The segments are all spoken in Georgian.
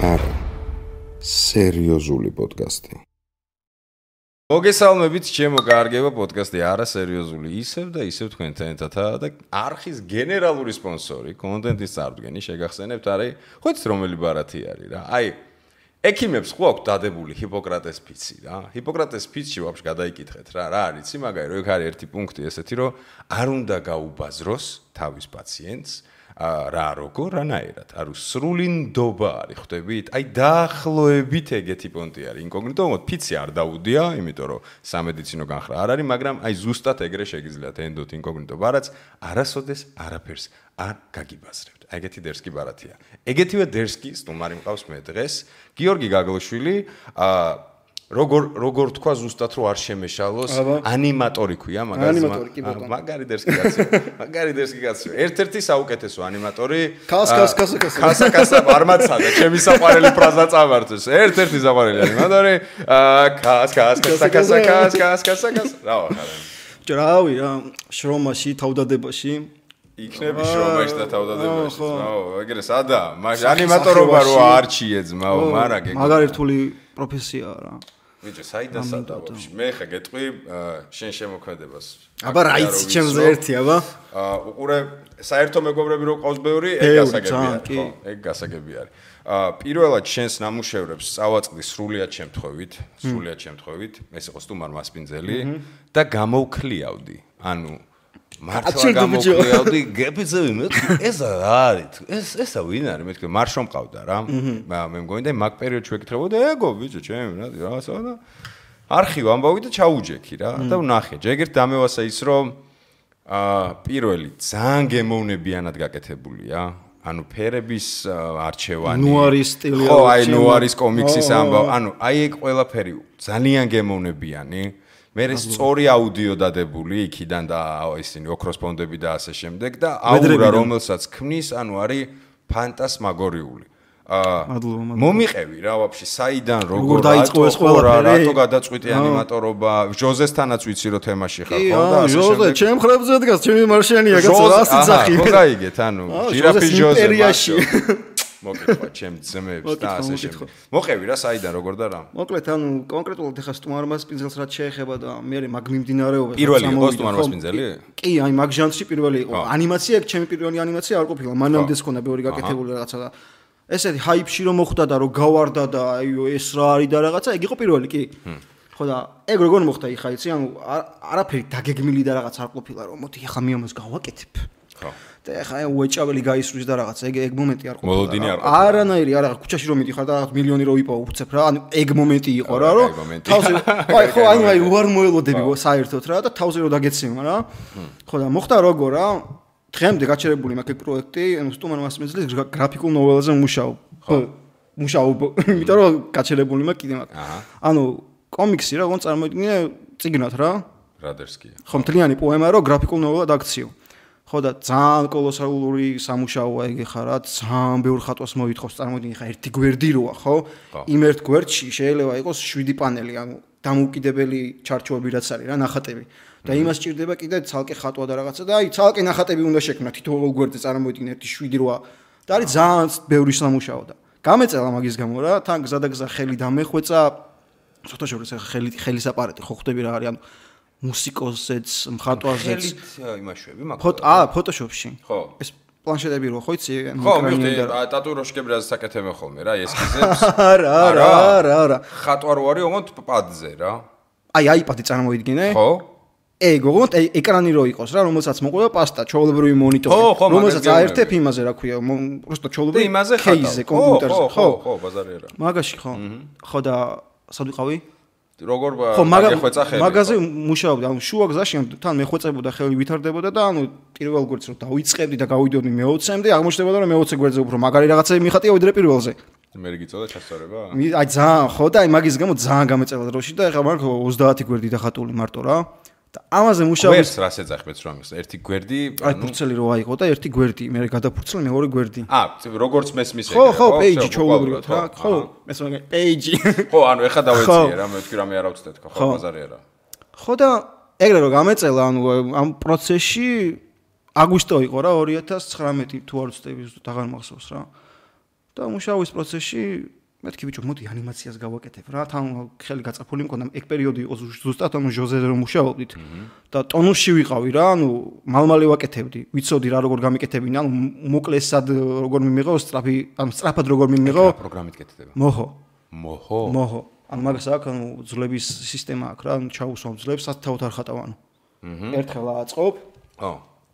არა სერიოზული პოდკასტი. მოგესალმებით, ჩემო კარგება პოდკასტი არა სერიოზული ისევ და ისევ თქვენთან ერთადაა და არხის გენერალური სპონსორი, კონტენტის წარდგენი შეგახსენებთ არის, ხო იცით რომელი ბარათი არის რა. აი, ექიმებს ხო აქვს დადებული ჰიპოკრატეს ფიცი რა. ჰიპოკრატეს ფიცში ვაფშე გადაიკითხეთ რა არის იცი მაგარი, რომ ეგ არის ერთი პუნქტი ესეთი, რომ არ უნდა გაუბაზროს თავის პაციენტს რა როგორ რანაირად არის სრული ნდობა არის ხვდებით აი დაახლოებით ეგეთი პონტი არის ინკოგნიტო ფიცი არ დაუდია იმიტომ რომ სამედიცინო განხრა არ არის მაგრამ აი ზუსტად ეგრე შეგიძლიათ ენდოთ ინკოგნიტო ბარათს არასოდეს არაფერს არ გაგიბაზრებთ აი ეგეთი დერსკი ბარათია ეგეთივე დერსკი სტუმარი მყავს მე დღეს გიორგი გაგლოშვილი როგორ თქვა ზუსტად რომ არ შემეშალოს ანიმატორი ქვია მაგარი დერსკი კაცო ერთ-ერთი საუკეთესო ანიმატორი კასა არ მაცადა ჩემი საყვარელი ფრაზა წამართოს ერთ-ერთი საყვარელი ანიმატორი კასა რავი რა შრომაში თავდადებაში იქნები შრომაში და თავდადებაში ეგრე სადა ანიმატორობა რო არჩიე ძმაო მაგარი რთული პროფესიაა რა ვიჭო, საიდან სადავებში? მე ხა გეტყვი შენ შემოქმედებას. აბა რა იცი ჩემზე ერთი აბა? უყურე საერთო მეგობრები რო ყავს ბევრი, ეგ გასაგები არის, ხო? ეგ გასაგები არის. პირველად შენს ნამუშევრებს წავაწყდი სრულიად შემთხვევით, ეს იყო სტუმარ მასპინძელი და გამოვქლიავდი. ანუ მართლა გამოვქლიავდი, გეფიცები მე ეს არის, ესა ვინ არის? მე თქვი მარშო მყავდა რა. მე მგონი და მაგ პერიოდში ვეკითხებოდი, ეგო ბიჭო, ჩემი რაღაცა და არქივ ამბავი და ჩაუჯექი რა და ვნახე. ჯეგერთ დამევასა ის რომ პირველი ძალიან გემოვნებიანად გაკეთებულია. ანუ ფერების არჩევანი. ნუარის სტილი. ხო, აი ნუარის კომიქსის ამბავი. ანუ აი ეგ ყველაფერი ძალიან გემოვნებიანი. მე სწორი აუდიო დადებული იქიდან და ისინი ოქროს ფონდები და ასე შემდეგ და აურა რომელსაც ქმნის, ანუ არის ფანტასმაგორიული. მომიყევი რა ვაფშე საიდან როგორ დაიწყო ეს ყველაფერი? რატო გადაწყვიტე ანიმატორობა? ჟოზესთანაც ვიცი რომ თემაში ხარ ხო და ასე ჟოზე, ჩემ ხრებზე დგას, ჩემი მარშიანია კაცო, ასე ძახი. ხო გაიგეთ, ანუ ჟირაფის ჟოზე მოკითხვა ჩემ ძმებს და ასე შემდეგ. მოყევი რა საიდან როგორ და რა? მოკლედ ანუ კონკრეტულად ეხა სტუმარ მასპინძელს რაც შეეხება და მე მაგ მიმდინარეობას პირველი იყო სტუმარ მასპინძელი? კი, აი მაგ ჟანრში პირველი იყო. ანიმაცია ეგ ჩემი პირველი ანიმაცია არ ყოფილა. მანამდე ხონდა ბევრი გაკეთებული რაღაცა და ესეთი ჰაიპში რომ მოხვდა და რომ გავარდა და აი ეს რა არის და რაღაცა ეგ იყო პირველი კი. ხო და ეგ როგორ მოხდა იხა იცი ანუ არაფერი დაგეგმილი და რაღაც არ ყოფილა რომ მოდი ეხა მიამოს გავაკეთებ. ხო. და ეხა უეჭაველი გაისვრის და რაღაცა ეგ მომენტი არ ყოფილა. მოლოდინი არ ყოფილა. არანაირი არა ქუჩაში რომ მიდიხარ და რაღაც მილიონი რო იპოვო უცებ რა ანუ ეგ მომენტი იყო რა რომ თავზე აი ხო აი უარ მოელოდები საერთოდ რა და თავზე რო დაგეცემა რა. ხო და მოხდა როგორ რა დღემდე გაჩერებული მაქვს პროექტი, ანუ სტუმარ მასპინძელის გრაფიკულ ნოველაზე მუშაობ. იმიტომ რომ გაჩერებული მაქვს კიდე მაქვს. ანუ კომიქსი რა, ოღონდ წარმოიდგინე წიგნად რა. რა დერსკია. ხო, მთლიანი პოემა რო გრაფიკულ ნოველად აქციო. ხო და ძალიან კოლოსალური სამუშაოა ეგ ხარ რა, ძალიან ბევრ ხატვას მოითხოვს, წარმოიდგინე ხა ერთი გვერდი როა, ხო? იმ ერთ გვერდში შეიძლება იყოს 7 პანელი, ანუ დამოუკიდებელი ჩარჩოები რაც არის რა, ნახატები. და იმას ჭირდება კიდე ცალკე ხატვა და რაღაცა და აი ცალკე ნახატები უნდა შექმნა თითოეულ გვერდზე წარმოიდგინე 7-8 და არის ძალიან ბევრი სამუშაო და გამეწელა მაგის გამო რა თან გზადაგზა ხელი დამეხვეწა ცოტა შორის ხელის აპარატი ხო ხვდები რა არის ანუ მუსიკოსზეც მხატვარზეც იმაშვები მაგ ფოტოშოპში ხო ეს პლანშეტები რო ხო იცი ხო მივხვდი ტატუიროშკები რა საკეთებენ ხოლმე რა ესკიზებს არა ხატვა რო არის ოღონდ პადზე რა აი აიპადი წარმოიდგინე ხო ეგ ოღონდ ეკრანი რო იყოს რა რომელსაც მოყვება პასტა ჩვეულებრივი მონიტორი რომელსაც აერთებ იმაზე რა ქვია просто ჩვეულებრივი кейზე კომპიუტერზე ხო ბაზარი არა მაგაში ხო და სად ვიყავი როგორ გეხვეწა ხელი მაგაზე მუშაობდი ანუ შუა გზაში თან მეხვეწებოდა ხელი ვითარდებოდა და ანუ პირველ გვერდს რო დავიწყებდი და გავიდოდი მე-20-მდე აღმოჩნდებოდა რომ მე-20 გვერდზე უფრო მაგარი რაღაცები მიხატია ვიდრე პირველზე მე გიწოდა ჩასწორება აი ძალიან ხო და აი მაგის გამო ძალიან გამეწელა დროში და ეხლა მაგ 30 გვერდი დახატული მარტო რა და ამაზე მუშაობს ვერს რას ეძახმეთ რომ ის ერთი გვერდი აი ფურცელი რო აიღო და ერთი გვერდი მე გადაფურცელი მეორე გვერდი როგორც მესმის ეგ ხო პეიჯი ჩაულებრივად რა ხო ეს მაგ პეიჯი ხო ანუ ეხა დავეციე რა მე ვთქვი რამე არა ვცდეთ ხო ბაზარი არა ხო და ეგრე რომ გამეწელა ანუ ამ პროცესში აგვისტო იყო რა 2019 თუ არ ვცდები ზუსტად აღარ მახსოვს რა და მუშაობის პროცესში მეთქი ბიჭო, მოდი ანიმაციას გავაკეთებ რა. თან ხელი გაწაფული მქონდა, ეგ პერიოდი იყო ზუსტად, ჟოზეზე რომ მუშაობდით და ტონუსში ვიყავი რა, მალმალე ვაკეთებდი. ვიცოდი რა როგორ გამიკეთებინა, მოკლესად როგორ მიმიღო, სწრაფად როგორ მიმიღო. პროგრამით კეთდება. მოჰო. მაგას აქვს, ძლების სისტემა აქვს რა, ჩაუსვამ ძლებს, სათავთ არ ხატავ ერთხელ აწყობ.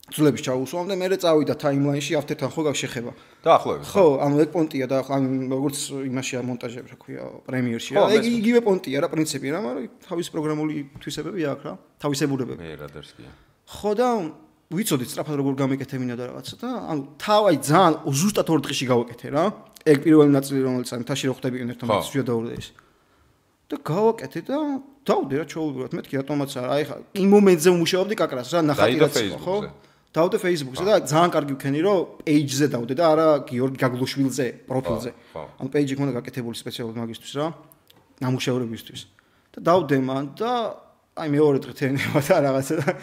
ძლების ჩაუსვამ და მე წავიდა ტაიმლაინში ავტერთან ხო გაგშეხება. დაახლოებით. ხო, ეგ პონტია და როგორც იმაშია მონტაჟები, რა ქვია, პრემიერში რა. ეგ იგივე პონტია რა, პრინციპი რა, მაგრამ თავისი პროგრამული თვისებები აქვს რა, თავისებურებები. მე რადერსკია. ხო და ვიცოდი სწრაფად როგორ გამეკეთებინა და რაღაცა და თავი ძალიან ზუსტად 2 დღეში გავაკეთე რა. ეგ პირველი ნაწილი რომელიც თაში რო ხდებიან ერთმანეთს შედაურდეს. და გავაკეთე და დავდე რა ჩაუბრალოდ მეთქი რატომაც არა აი ხა იმ მომენტზე ვმუშაობდი კაკრას რა ნახატი რაც ხო დავდე Facebook-ზე და ძალიან კარგი ვქენი რომ page-ზე დავდე და არა გიორგი გაგლუშვილზე პროფილზე ანუ page-ი მქონდა გაკეთებული სპეციალურად მაგისთვის რა ნამუშევრებისთვის და დავდე მან და აი მეორე დღე თერნება და რაღაცა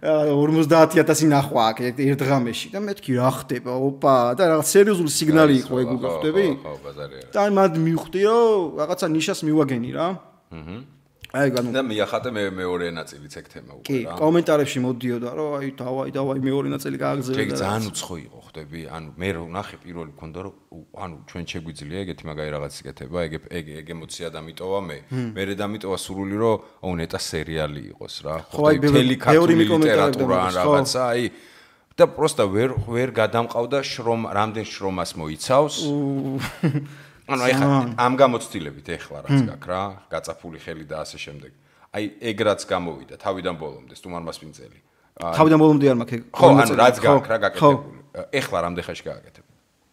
50000 ნახვა აქ ერთ დღამეში და მეთქი რა ხდება ოპა და რაღაც სერიოზული სიგნალი იყო ეგ უკვე ხვდები ხო ბაზარია და მად მივხვდი რომ რაღაცა ნიშას მივაგენი რა აი განუ და მიახატე მეორე ნაწილიც ეგ თემა უკვე რა კი კომენტარებში მოდიოდა რომ აი დავაი მეორე ნაწილი გააგზავნე და ეგ ძალიან უცხო იყო ხვდები ანუ მე რო ნახე პირველი მქონდა რომ ანუ ჩვენ შეგვიძლია ეგეთი მაგარი რაღაც იკეთება ეგ ემოცია დამიტოვა მე დამიტოვა სურვილი რომ აუ ნეტა სერიალი იყოს რა ხო თელი ქართული ლიტერატურა ან რაღაცა აი და პროსტა ვერ გადამყავდა რამდენ შრომას მოიცავს ანუ აი ხა ამ გამოცდილებით ეხლა რაც გაქვს რა გაწაფული ხელი და ასე შემდეგ აი ეგ რაც გამოვიდა თავიდან ბოლომდე სტუმარმასპინძელი თავიდან ბოლომდე არ მაქვს ეგ ხო ანუ რაც გაქვს რა გაკეთებული ეხლა რამდენ ხანში გააკეთებ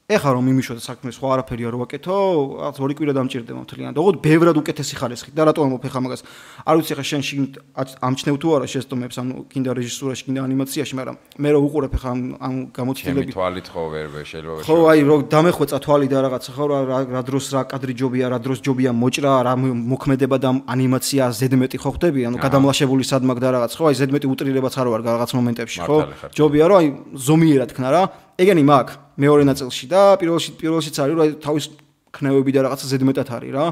ეხლა რომ მიმიშოთ საქმე სხვა არაფერი არ ვაკეთო რაღაც 2 კვირა დამჭირდება მთლიანად ოღონდ ბევრად უკეთესი ხარისხით და რატომ ამოფ ეხლა მაგას არ ვიცი ეხლა შენ ამჩნევ თუ არა შეცდომებს ანუ კინდა რეჟისურაში კინდა ანიმაციაში მაგრამ მე რო უყურებ ეხლა ამ გამოცდილებით თვალით ხო ვერ შეიძლება ხო აი რო დამეხვეწა თვალი და რაღაცა ხო რა დროს რა კადრი ჯობია რა დროს ჯობია მოჭრა რა მოქმედება და ანიმაცია ზედმეტი ხო ხდები ანუ გადამლაშებული სადმაგ და რაღაც ხო აი ზედმეტი უტრირებაც არ ვარ რაღაც მომენტებში ხო ჯობია რომ აი ზომიერად ქნა რა ეგენი მაგ მეორე ნაწილში და პირველშიც არის რომ თავის ქნევები და რაღაცა ზედმეტად არის რა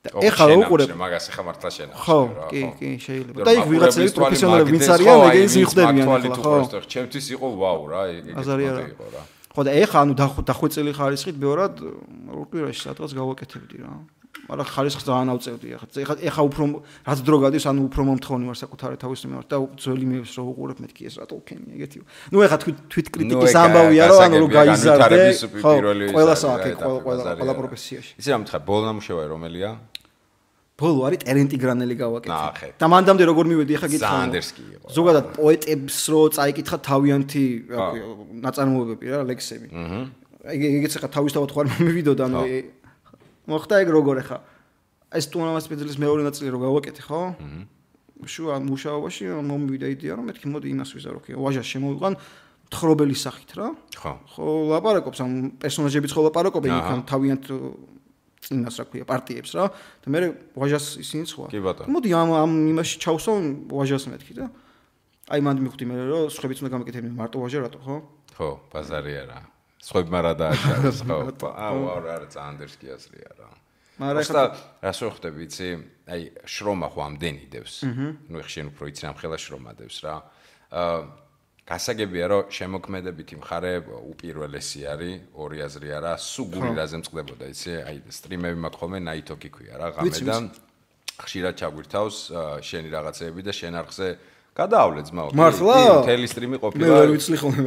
და ეხლა რა უყურებ მაგას ეხლა მართლა შენ ხო კი შეიძლება და იქ ვიღაცები პროფესიონალები ვინც არიან ეგენს მიხვდებიან ხო ჩემთვის იყო ვაუ რა ეგ იყო რა ხო და ეხლა ანუ დახვეწილი ხარისხით ბევრად რკვირაში სადღაც გავაკეთებდი რა მაგრამ ხარისხს ძალიან ავწევდი ეხლა უფრო რაც დრო გადის ანუ უფრო მომთხოვნი ვარ საკუთარი თავის მიმართ და ძველი მეებს რო უყურებ მეთქი ეს რატო ვქენი ეგეთი ნუ ეხლა თვით კრიტიკის ამბავია რომ ანუ რო გაიზარდე ხო ყველა საათი ყველა პროფესიაში იცი რა მითხარ ბოლო ნამუშევარი რომელია ბოლო არის ტერენტი გრანელი გავაკეთე და მანდამდე როგორ მივედი ეხლა გითხრა სანდერსკი იყო ზოგადად პოეტებს რო წაიკითხა თავიანთი ნაწარმოებები რა ლექსები ეგეც ეხლა თავისთავად ხარ მივიდოდა ანუ მოხდა ეგ როგორ ეხა ეს სტუმარმასპინძლის მეორე ნაწილი რო გავაკეთე ხო შუა მუშაობაში მომივიდა იდეა რომ მეთქი მოდი იმას ვიზარო კი ვაჟას შემოვიყვან თხრობელი სახით რა ხო ლაპარაკობს ამ პერსონაჟებიც ხო ლაპარაკობენ იქ თავიანთ წინას რა ქვია პარტიებს რა და მე ვაჟას ისინი სხვა მოდი ამ იმაში ჩავსო ვაჟას მეთქი და აი მანდ მივხვდი მე რომ სხვებიც უნდა გამეკეთებინე მარტო ვაჟა რატო ხო ბაზარია რა სხვებმა რა დააჭარეს ხო აუ არა ზანდერსკი ასლია რა მაგრამ ახლა რას ვხვდები იცი აი შრომა ხო ამდენი დევს ნუ ეხ შენ უფრო იცი ამ ხელა შრომა დევს რა გასაგებია რომ შემოქმედებითი მხარე უპირველესი არის ორი აზრი არა სუგური რაზე მწყდებოდა იცი აი სტრიმები მაქვს ხოლმე ნაითოკი ქვია რა ღამედან ხშირად ჩაგვირთავს შენი რაღაცეები და შენ არხზე გადაავლე ძმაო მთელი სტრიმი ყოფილა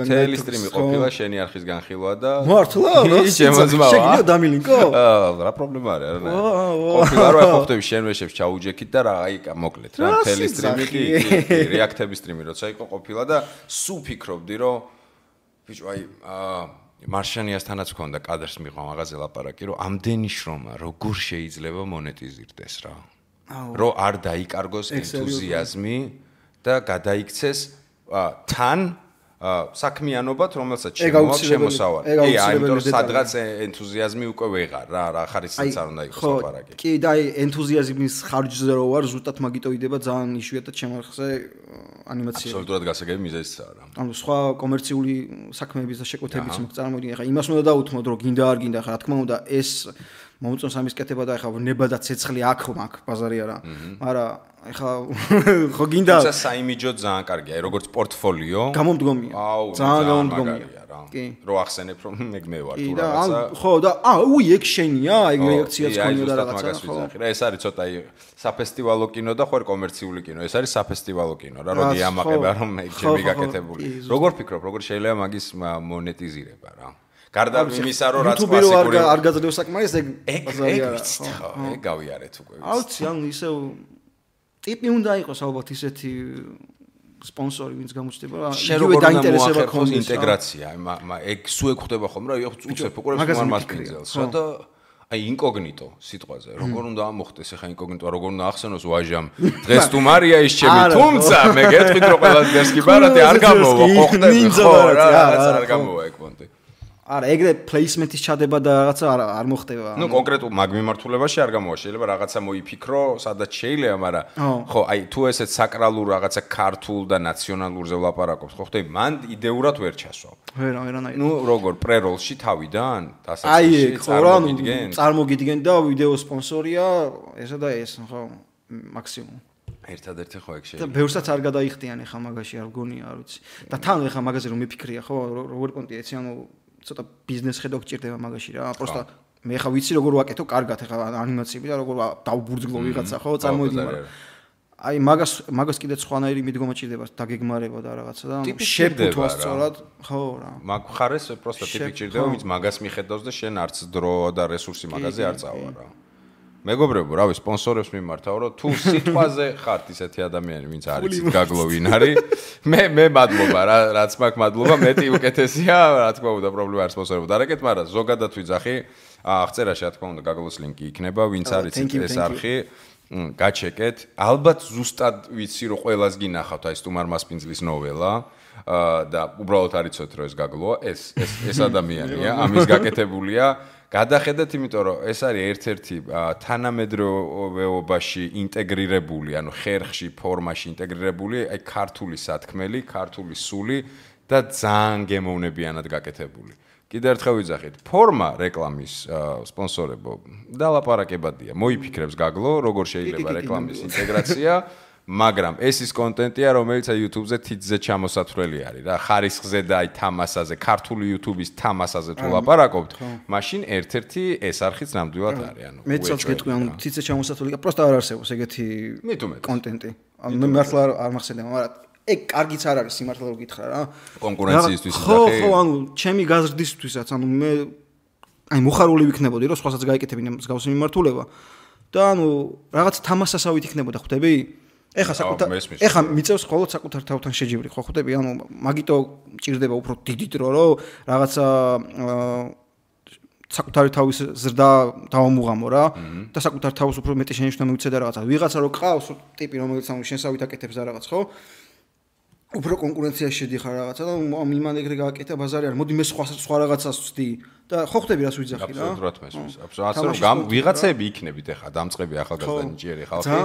მთელი სტრიმი ყოფილა შენი არხის განხილვა და მართლა შეგიძლია დამილინკო რა პრობლემა არის არა ყოფილა რა ყოფტები შენ ვეშებს ჩაუჯექით და რა აი მოკლედ რა მთელი სტრიმი კი რეაქტების სტრიმი როცა იყო ყოფილა და სულ ფიქრობდი რომ ბიჭო აი მარშანიასთანაც მქონდა კადრს მიყვა მაღაზე ლაპარაკი რომ ამდენი შრომა როგორ შეიძლება მონეტიზირდეს რა რომ არ დაიკარგოს ენთუზიაზმი და გადაიქცეს თან საქმიანობად, რომელსაც შემოაქვს შემოსავალი. ამიტომ სადღაც ენთუზიაზმი უკვე ვეღარ რა ხარისხიც არ უნდა იყოს ლაპარაკი. კი და ენთუზიაზმის ხარჯზე რო ვარ, ზუსტად მაგიტოიდება ძალიან იშვიათად შემარხზე ანიმაცია. აბსოლუტურად გასაგები მიზეზია რა. ანუ სხვა კომერციული საქმეების და შეკვეთებიც მაგ წარმოიდგინე. ახლა იმას უნდა დაუთმოთ, რომ გინდა არ გინდა, ახლა რა თქმა უნდა ეს მომწონს ამის კეთება და ახლა ნება და ცეცხლი აქ მაგ ბაზარი არა. მაგრამ ახლა ხო გინდა თუმცა საიმიჯო ძალიან კარგია, როგორც პორტფოლიო. გამომდგომია. ძალიან გამომდგომია რა. რო ახსენებ რომ მე ვარ თუ რაღაცა. ხო და ეგ შენია, ეგ რეაქციაც ქონია და რაღაცა. ხო. ეს არის ცოტა საფესტივალო კინო და ხوار კომერციული კინო. ეს არის საფესტივალო კინო რა, როდი ამაყება რომ ჩემი გაკეთებული. როგორ ფიქრობ, როგორ შეიძლება მაგის მონეტიზირება რა? გარდა იმისა რომ რაც კლასიკური არ გაძლევს საკმარის ეგ ბაზარია. ეგ გავიარეთ უკვე. აუცი ანუ ისევ ტიპი უნდა იყოს ალბათ ისეთი სპონსორი ვინც გამოჩნდება რა იგივე დაინტერესება ქონდეს ინტეგრაცია ეგ სულ ეხდება ხომ რა უცებ უყურებს მარ მასპინძელს რა და აი ინკოგნიტო სიტყვაზე როგორ უნდა მოხდეს ახლა ინკოგნიტო როგორ უნდა ახსენოს ვაჟამ დღეს თუ მარია ის ჩემი თუმცა მე გეტყვით რომ ყველა დღეს კი ბარათი არ გამოვა ხო ხდები ხო რა არ გამოვა ეგ პონტი არა ეგრე პლეისმენტის ჩადება და რაღაცა არ მოხდება ნუ კონკრეტულ მაგ მიმართულებაში არ გამოვა შეიძლება რაღაცა მოიფიქრო სადაც შეიძლება მაგრამ ხო აი თუ ესეც საკრალურ რაღაცა ქართულ და ნაციონალურზე ვლაპარაკობთ ხო ხდები მან იდეურად ვერ ჩასვავ ვერანაირად ნუ როგორ პრეროლში თავიდან დასაწყისში წარმოგიდგენ და ვიდეო სპონსორია ესა და ეს ხო მაქსიმუმ ერთადერთი ხო ეგ შეიძლება და ბევრსაც არ გადაიხდიან ახლა მაგაში არ გონია არ ვიცი და თან ახლა მაგაზე რომ მიფიქრია ხო როგორი პონტია ეცი ანუ ცოტა ბიზნეს ხედვა გჭირდება მაგაში რა. პროსტა მე ხა ვიცი როგორ ვაკეთო კარგად ახლა ანიმაციები და როგორ დავბურძგლო ვიღაცა ხო წარმოიდგინე. აი მაგას კიდე სხვანაირი მიდგომა ჭირდება დაგეგმარება და რაღაცა და შეფუთვა სწორად ხო რა. მაგ ხარეს პროსტა ტიპი ჭირდება ვინც მაგას მიხედავს და შენ არც დრო და რესურსი მაგაზე არ წავა რა. მეგობრებო, რავი, სპონსორებს მიმართავ, რომ თუ სიტყვაზე ხართ ისეთი ადამიანი, ვინც არის გაგლოვინ არის, მე მადლობა რა, რაც მაქვს მადლობა, მეტი უკეთესია, რა თქმა უნდა, პრობლემა არ სპონსორებო. დარეკეთ, მაგრამ ზოგადად ვიძახი, აღწერაში რა თქმა უნდა, გაგლოს ლინკი იქნება, ვინც არის ეს არხი, გაჩეკეთ. ალბათ ზუსტად ვიცი, რომ ყველას გინახავთ აი სტუმარ მასპინძლის ნოველა. და უბრალოდ არ იცოდეთ რომ ეს გაგლოა, ეს ადამიანია, ამის გაკეთებულია. გადახედეთ, იმიტომ რომ ეს არის ერთ-ერთი თანამედროვეობაში ინტეგრირებული, ანუ ხერხში, ფორმაში ინტეგრირებული, აი ქართული სათქმელი, ქართული სული და ძალიან გემოვნებიანად გაკეთებული. კიდევ ერთხელ ვიძახით, ფორმა რეკლამის სპონსორებო დალაპარაკებადია. მოიფიქრებს გაგლო, როგორ შეიძლება რეკლამის ინტეგრაცია. მაგრამ ეს ის კონტენტია, რომელიც YouTube-ზე თითზე ჩამოსათვლელი არის რა, ხარისხზე და აი თამასაზე, ქართული YouTube-ის თამასაზე თუ ლაპარაკობთ, მაშინ ერთ-ერთი ეს არხიც ნამდვილად არის, ანუ მეც გეტყვი, ანუ თითზე ჩამოსათვლელი, პროსტა არ არსებობს ეგეთი კონტენტი. ანუ მე მართლა არ მახსენდება, მაგრამ ეგ კარგიც არ არის სიმართლე რომ გითხრა რა. კონკურენციისთვის იძახი. ხო, ანუ ჩემი გაზრდისთვისაც, ანუ მე აი მოხარული ვიქნებოდი, რომ სხვასაც გაიკეთებინა მსგავსი მიმართულება და ანუ რაღაც თამასასავით იქნებოდა, ხვდები? ეხა მიწევს მხოლოდ საკუთარ თავთან შეჯიბრი ხო ხვდები ანუ მაგიტო ჭირდება უფრო დიდი დრო რომ რაღაცა საკუთარი თავის ზრდა დავამუღამო რა და საკუთარ თავს უფრო მეტი შენიშვნა მივცე და რაღაცა ვიღაცა რო ყავს ტიპი რომელიც ანუ შენსავით აკეთებს და რაღაც ხო უფრო კონკურენციაში შედიხარ რაღაცა და იმან ეგრე გააკეთა ბაზარი არ მოდი მე სხვა რაღაცას ვცდი და ხო ხვდები რას ვიძახი რა აბსოლუტურად მესმის აბსოლუტურად რომ ვიღაცები იქნებით ახლა დამწყები ახალგაზრდა ნიჭიერი ხალხი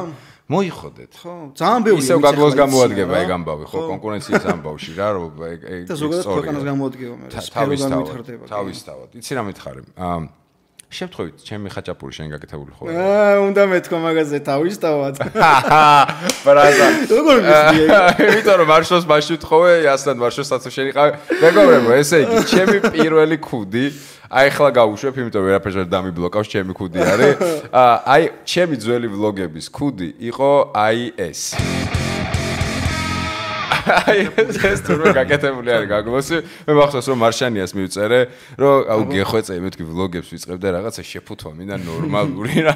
მოიხოდეთ ხო ძალიან ბევრი ისევ გაგლოს გამოადგება ეგ ამბავი ხო კონკურენციის ამბავში რა რომ ეგ და ზოგადად ქვეყანას გამოადგება მე თავისთავად იცი რა მითხარი შევთხოვით ჩემი ხაჭაპური შენ გაკეთებული ხო უნდა მეთქვა მაგაზე თავისთავად ბრაზა როგორ მისდიე იმიტომ რომ მარშოს მასში ვთხოვე ასთან მარშოსაც შენიყავე მეგობრებო ესე იგი ჩემი პირველი ქუდი აი ახლა გავუშვებ იმიტომ ვერაფერს ვერ დამიბლოკავს ჩემი ქუდი არის აი ჩემი ძველი ვლოგების ქუდი იყო აი ეს აი ეს თურმე გაკეთებული არის გაგლოსი მე მახსოვს რომ მარშანიას მივწერე რომ აუ გეხვეწე მეთქი ვლოგებს ვიწყებ და რაღაცა შეფუთვა მინდა ნორმალური რა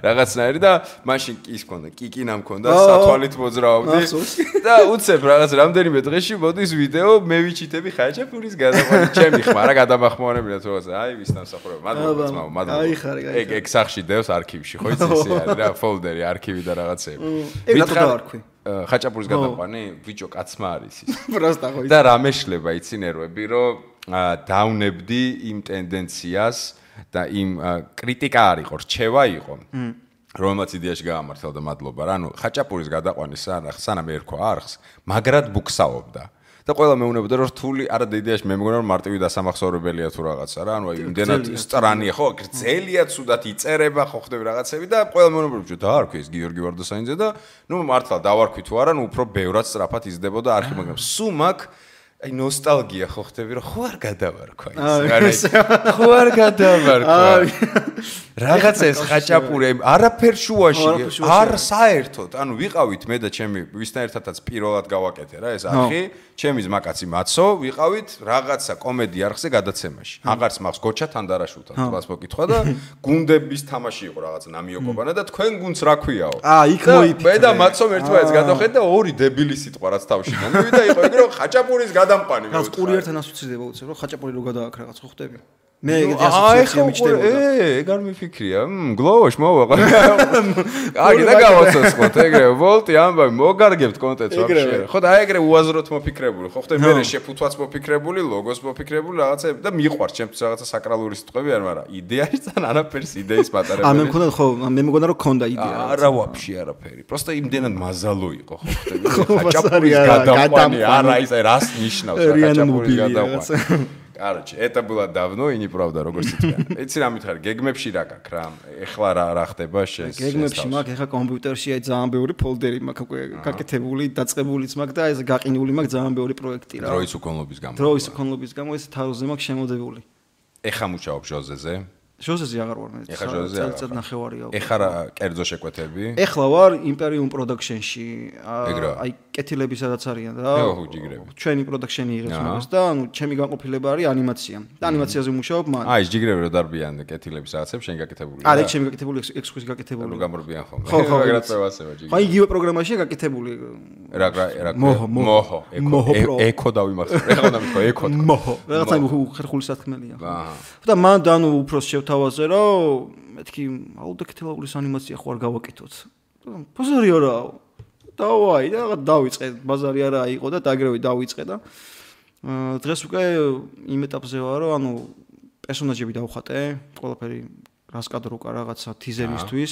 რაღაცნაირი და მაშინ ის მქონდა კიკინა მქონდა სათვალით მოძრაობდი და უცებ რაღაც რამდენიმე დღეში მოდის ვიდეო მე ვიჩიტები ხაჭაპურის გადაყვანი ჩემი ხმა რა გადამახმოვანებინა თუ რაღაცა აი ვის დამსახურება მადლობა ეგ სახში დევს არქივში ხო იცი ეს არის რა ფოლდერი არქივი და რაღაცები ეგ რატო დავარქვი ხაჭაპურის გადაყვანი ბიჭო კაცმა არის ის. პროსტა ხო. და რა მეშლება იცი ნერვები, რომ დავნებდი იმ ტენდენციას და იმ კრიტიკა არ იყო, რჩევა იყო. რომელმაც იდეაში გაამართლა და მადლობა რა. ანუ ხაჭაპურის გადაყვანის სანამ ერქვა არხს, მაგრად ბუქსაობდა. და ყველა მეუბნებოდა რომ რთული არა და იდეაში მე მგონა რომ მარტივი დასამახსოვრებელია თუ რაღაცა რა. ანუ აი იმდენად სტრანია ხო, გრძელია ცუდად იწერება ხო ხდები რაღაცები და ყველა მეუბნებოდა რომ დაარქვი ეს გიორგი ვარდოსანიძე და ნუ მართლა დავარქვი თუ არა, ნუ უფრო ბევრად სწრაფად იზრდებოდა არხი, მაგრამ სულ მაგ აი ნოსტალგია ხო ხდები რომ ხო არ გადავარქვა ის. ხო არ გადავარქვა. რაღაც ეს ხაჭაპური არაფერ შუაში არ საერთოდ. ანუ ვიყავით მე და ჩემი ვისთან ერთადაც პირველად გავაკეთე რა ეს არხი. ჩემი ზმაკაცი მაცო ვიყავით რაღაცა კომედი არხზე გადაცემაში. აღარც მახს გოჩა თანდარაშულთან თვას მოკითხვა და გუნდების თამაში იყო რაღაც ნამიოკობანა და თქვენ გუნდს რა ქვიაო. იქ მოიფიქრე. მე და მაცომ ერთმანეთს გადავხედეთ და ორი დებილი სიტყვა რაც თავში მომივიდა იყო ეგ რომ ხაჭაპურის გადამყვანი მე. რაც კურიერთან ასოცირდება უცებ რომ ხაჭაპური რო გადააქ რაღაც ხო ხდები. მე ეგეთი ასოციაცია მიჩნდებოდა. ეგ არ მიფიქრია. გლოვოშ მოვაყვა. აგი და გავაცოცხლოთ ეგრე ვოლტი ამბავი მოგარგებთ კონტენტს ვაფშე. ხო და აი ეგრე უაზროთ მოფიქრებული. ხო ხდები მე შეფუთვაც მოფიქრებული, ლოგოს მოფიქრებული რაღაცები და მიყვარს ჩემთვის რაღაცა საკრალური სიტყვები არ, მაგრამ იდეაში თან არაფერს იდეის მატარებელი. მე მქონდა ხო, მე მგონა რომ ქონდა იდეა. არა ვაფშე არაფერი. პროსტა იმდენად მაზალო იყო ხო ხდები. ხაჭაპურის გადაყვანი არა ის რას ნიშნავს ხაჭაპურის გადაყვანი. Короче, это было давно и неправда, როგორც იციან. იცი რა მითხარი, გეგმებში რა გაქვს რა? ეხლა რა ხდება შენს? გეგმებში მაქვს, ეხლა კომპიუტერში აი ძალიან ბევრი ფოლდერი მაქვს უკვე გაკეთებული, დაწყებულიც მაქვს და ეს გაყინული მაქვს ძალიან ბევრი პროექტი რა. დროის უკონლობის გამო. დროის უკონლობის გამო ეს თავზე მაქვს შემოდებული. ეხლა მუშაობ ჟოზეზე? ჟოზეზე აღარ ვარ მე. ეხლა ჟოზეზე წელიწად ნახევარია. ეხლა რა კერძო შეკვეთები? ეხლა ვარ Imperium Production-ში. აი კეთილები სადაც არიან რა. ჩვენი production-ი იღებს მაგას და ანუ ჩემი განყოფილება არის ანიმაცია. და ანიმაციაზე ვმუშაობ მან. აი ეს ჯიგრები რო დარბიან კეთილები სადაცებს შენ გაკეთებული. არა, ჩემი გაკეთებული ექსკურსი გაკეთებული. რო გამორბიან ხოლმე. ხო, ეგრეთ წევასება ჯიგრები. აი იგივე პროგრამაშია გაკეთებული. რა მოჰო. ეკო დავიმახსოვრე. ეხლა დამთქვა ეკო. მოჰო. რაღაცა ხერხული სათქმელია. და მან და ანუ უფრო თავაზე რომ მეთქი აუდიოქეთილაულის ანიმაცია ხო არ გავაკეთოთ. ბაზარი არაა. დავაი და რაღაც დავიწყე. ბაზარი არა იყო და დაგრევი დავიწყე და დღეს უკვე იმ ეტაპზე ვარ რომ ანუ პერსონაჟები დავხატე, ყველაფერი რას კადრო უკა რაღაცა თიზერისთვის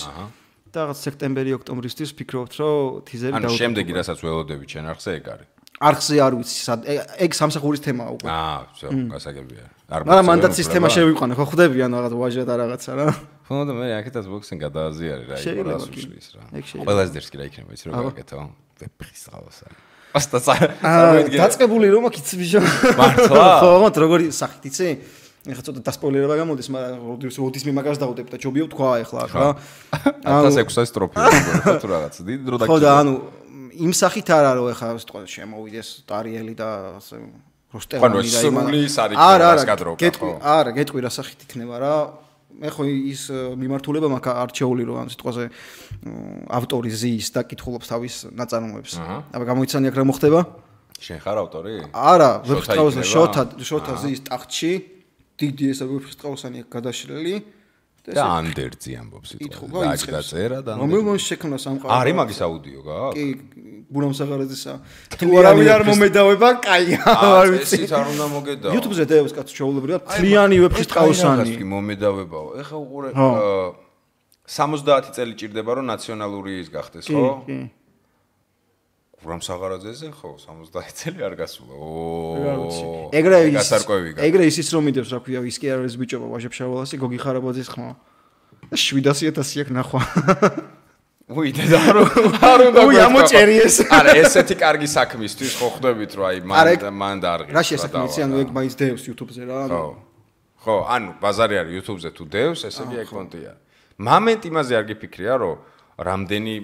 და რაღაც სექტემბერი-ოქტომბრისთვის ფიქრობთ რომ თიზერი დავუწყო. ანუ შემდეგი რასაც ველოდები ჩვენ არხზე ეგ არის. არხზე არ ვიცი სად ეგ სამსახურის თემაა უკვე. всё, გასაგებია. მაგრამ მანდაც სისტემა შევიყვანე, ხო ხვდები ანუ რაღაც ვაჟა და რაღაცა რა. ხო და მე აქეთაც ბოქსინგ გადააზიარი რა, იყო რას უშლის რა. ყველაზე დერსკი რა იქნება ის რო გაკეთო. ვეფხის ყავასა. ასტა დაწყებული რომ აქ იცი ბიჭო. მართლა? ხო, როგორი სახით იცი? ეხლა ცოტა დასპოილერება გამოდის, მაგრამ როდის მე მაგას დავუდებ და ჯობია თქვა ეხლა რა. 1600 სტროფი თუ რაღაც დიდი დრო დაგჭირდა. ხო და ანუ იმ სახით არა რომ ეხლა სიტყვა შემოვიდეს ტარიელი და ასე როსტევანი და იმალი არა არა გეტყვი რა სახით იქნება რა მე ხო ის მიმართულება მაქვს არჩეული რომ ამ სიტყვაზე ავტორი ზის და კითხულობს თავის ნაწარმოებს აბა გამოიცანი აქ რა მოხდება შენ ხარ ავტორი არა ვეფხისტყაოსანი შოთა ზის ტახტში დიდი ესა ვეფხისტყაოსანი გადაშლილი და ანდერძი ამბობს სიტყვა დააჭერა და რომელმონ შექმნა სამყარო არის მაგის აუდიო გაქვს კი ბურამ საღარაძისა თუ არავინ არ მომედავება კაია არ ვიცი ეს არ უნდა მოგედაო YouTube-ზე დევს კაცო ჩაულებრივად მთლიანი ვეფხისტყაოსანი მომედავებაო ეხა უყურე 70 წელი ჭირდება რომ ნაციონალური ის გახდეს ხო კი ბურამ საღარაძეზე ხო 70 წელი არ გასულა ო ეგრე ის რომ მიდევს რა ქვია ის კი არის ბიჭობა ვაჟებშავალასი გოგი ხარაბაძის ხმა 700.000 აქ ნახვა უი და არ უნდა უი ამოჭერიეს არა ესეთი კარგი საქმისთვის ხო ხვდებით რომ აი მან დაარღეს რა შესაქმეცი ანუ ეგ მაინც დევს YouTube-ზე რა ხო ანუ ბაზარი არის YouTube-ზე თუ დევს ესე იგი ეგ კონტია მომენტ იმაზე არ გიფიქრია რომ რამდენი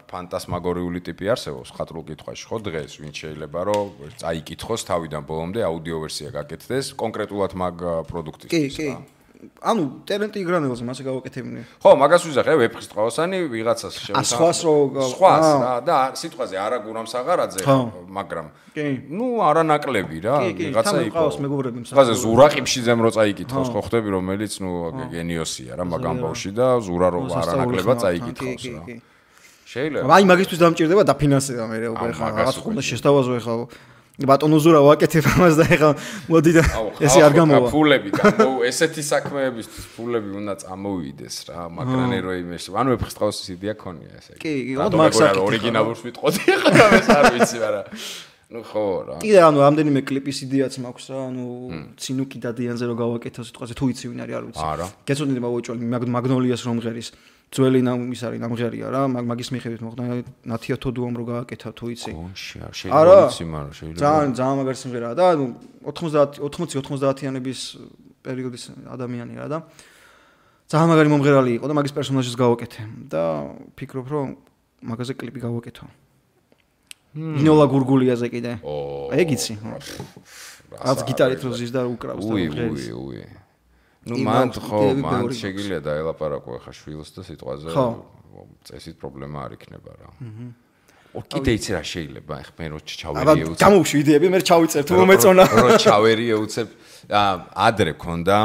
ფანტასმაგორიული ტიპი არსებობს ხატრულ კითხვაში ხო დღეს ვინც შეიძლება რომ წაიკითხოს თავიდან ბოლომდე აუდიო ვერსია გაკეთდეს კონკრეტულად მაგ პროდუქტისთვის კი ანუ ტალენტი იგრანელზე მასე გავაკეთებინე ხო მაგას ვიზახე ვეფხისტყაოსანი ვიღაცას სხვას რა და სიტყვაზე არა გურამ საღარაძე მაგრამ ნუ არა ნაკლები რა ვიღაცა იყო სხვაზე ზურა ყიფშიძემ რო წაიკითხოს ხო ხვდები რომელიც ნუ გენიოსია რა მაგ ამბავში და ზურა რო არა ნაკლებად წაიკითხოს რა შეიძლება. აი მაგისთვის დამჭირდება დაფინანსება მე უკვე ხა რაღაც უნდა შეშთავაზო ხა ბატონო ზურა ვაკეთებ ამას და ეხლა მოდი და ესე არ გამოვა. ფულები ესეთი საქმეებისთვის ფულები უნდა წამოვიდეს რა, მაგრამ რო იმეში. ანუ ვეფხისტყაოსის იდეა ქონია ესე. კი, მაგსაკი ორიგინალურს ვიტყოდი ხა ეს არ ვიცი, მაგრამ ნუ ხო რა. კიდე ანუ რამდენიმე კლიპის იდეაც მაქვს რა, ანუ ცინუკი დადიანზე რო გავაკეთო სიტყვაზე თუ იცი ვინ არის არ ვიცი. გეცოდნი მოვუჭოლი მაგნოლიას რომ ღერის ძველი ის არის ნამღერია რა, მაგის მიხედვით მოხდა ნათია თოდუამ რო გააკეთა თუ იცი. შეიძლება იცი, მაგრამ შეიძლება. ძალიან მაგარი სიმღერაა და ანუ 80-90-იანების პერიოდის ადამიანი რა და ძალიან მაგარი მომღერალი იყო და მაგის პერსონაჟს გავაკეთე და ფიქრობ რომ მაგაზე კლიპი გავაკეთო. ინოლა გურგულიაზე კიდე. ეგ იცი. რაც გიტარით რო ზის და უკრავს და ღერის. ნუ მან შეგიძლია დაელაპარაკო ხა შვილს და სიტყვაზე წესით პრობლემა არ იქნება რა. კიდე იცი რა შეიძლება ხა მე რო ჩავერიე უცებ. გამოვშვი იდეები მე ჩავიწერ თუ მომეწონა. რო ჩავერიე უცებ ადრე ქონდა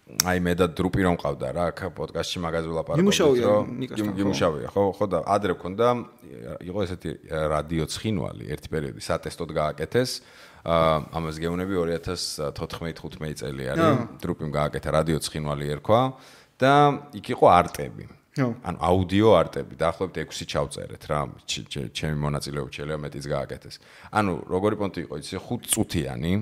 აი მე და დრუპი რომ ყავდა რა აქ პოდკასტში მაგაზე ვლაპარაკობთ რომ გიმუშავია ხო და ადრე ქონდა იყო ესეთი რადიო ცხინვალი ერთი პერიოდი სატესტოდ გააკეთეს ამას გეუბნები 2014-15 წელი არის დრუპიმ გააკეთა რადიო ცხინვალი ერქვა და იქ იყო არტები ანუ აუდიო არტები დაახლოებით 6 ჩავწერეთ რა ჩემი მონაწილეობით შეიძლება მეტიც გააკეთეს ანუ როგორი პონტი იყო იცი 5 წუთიანი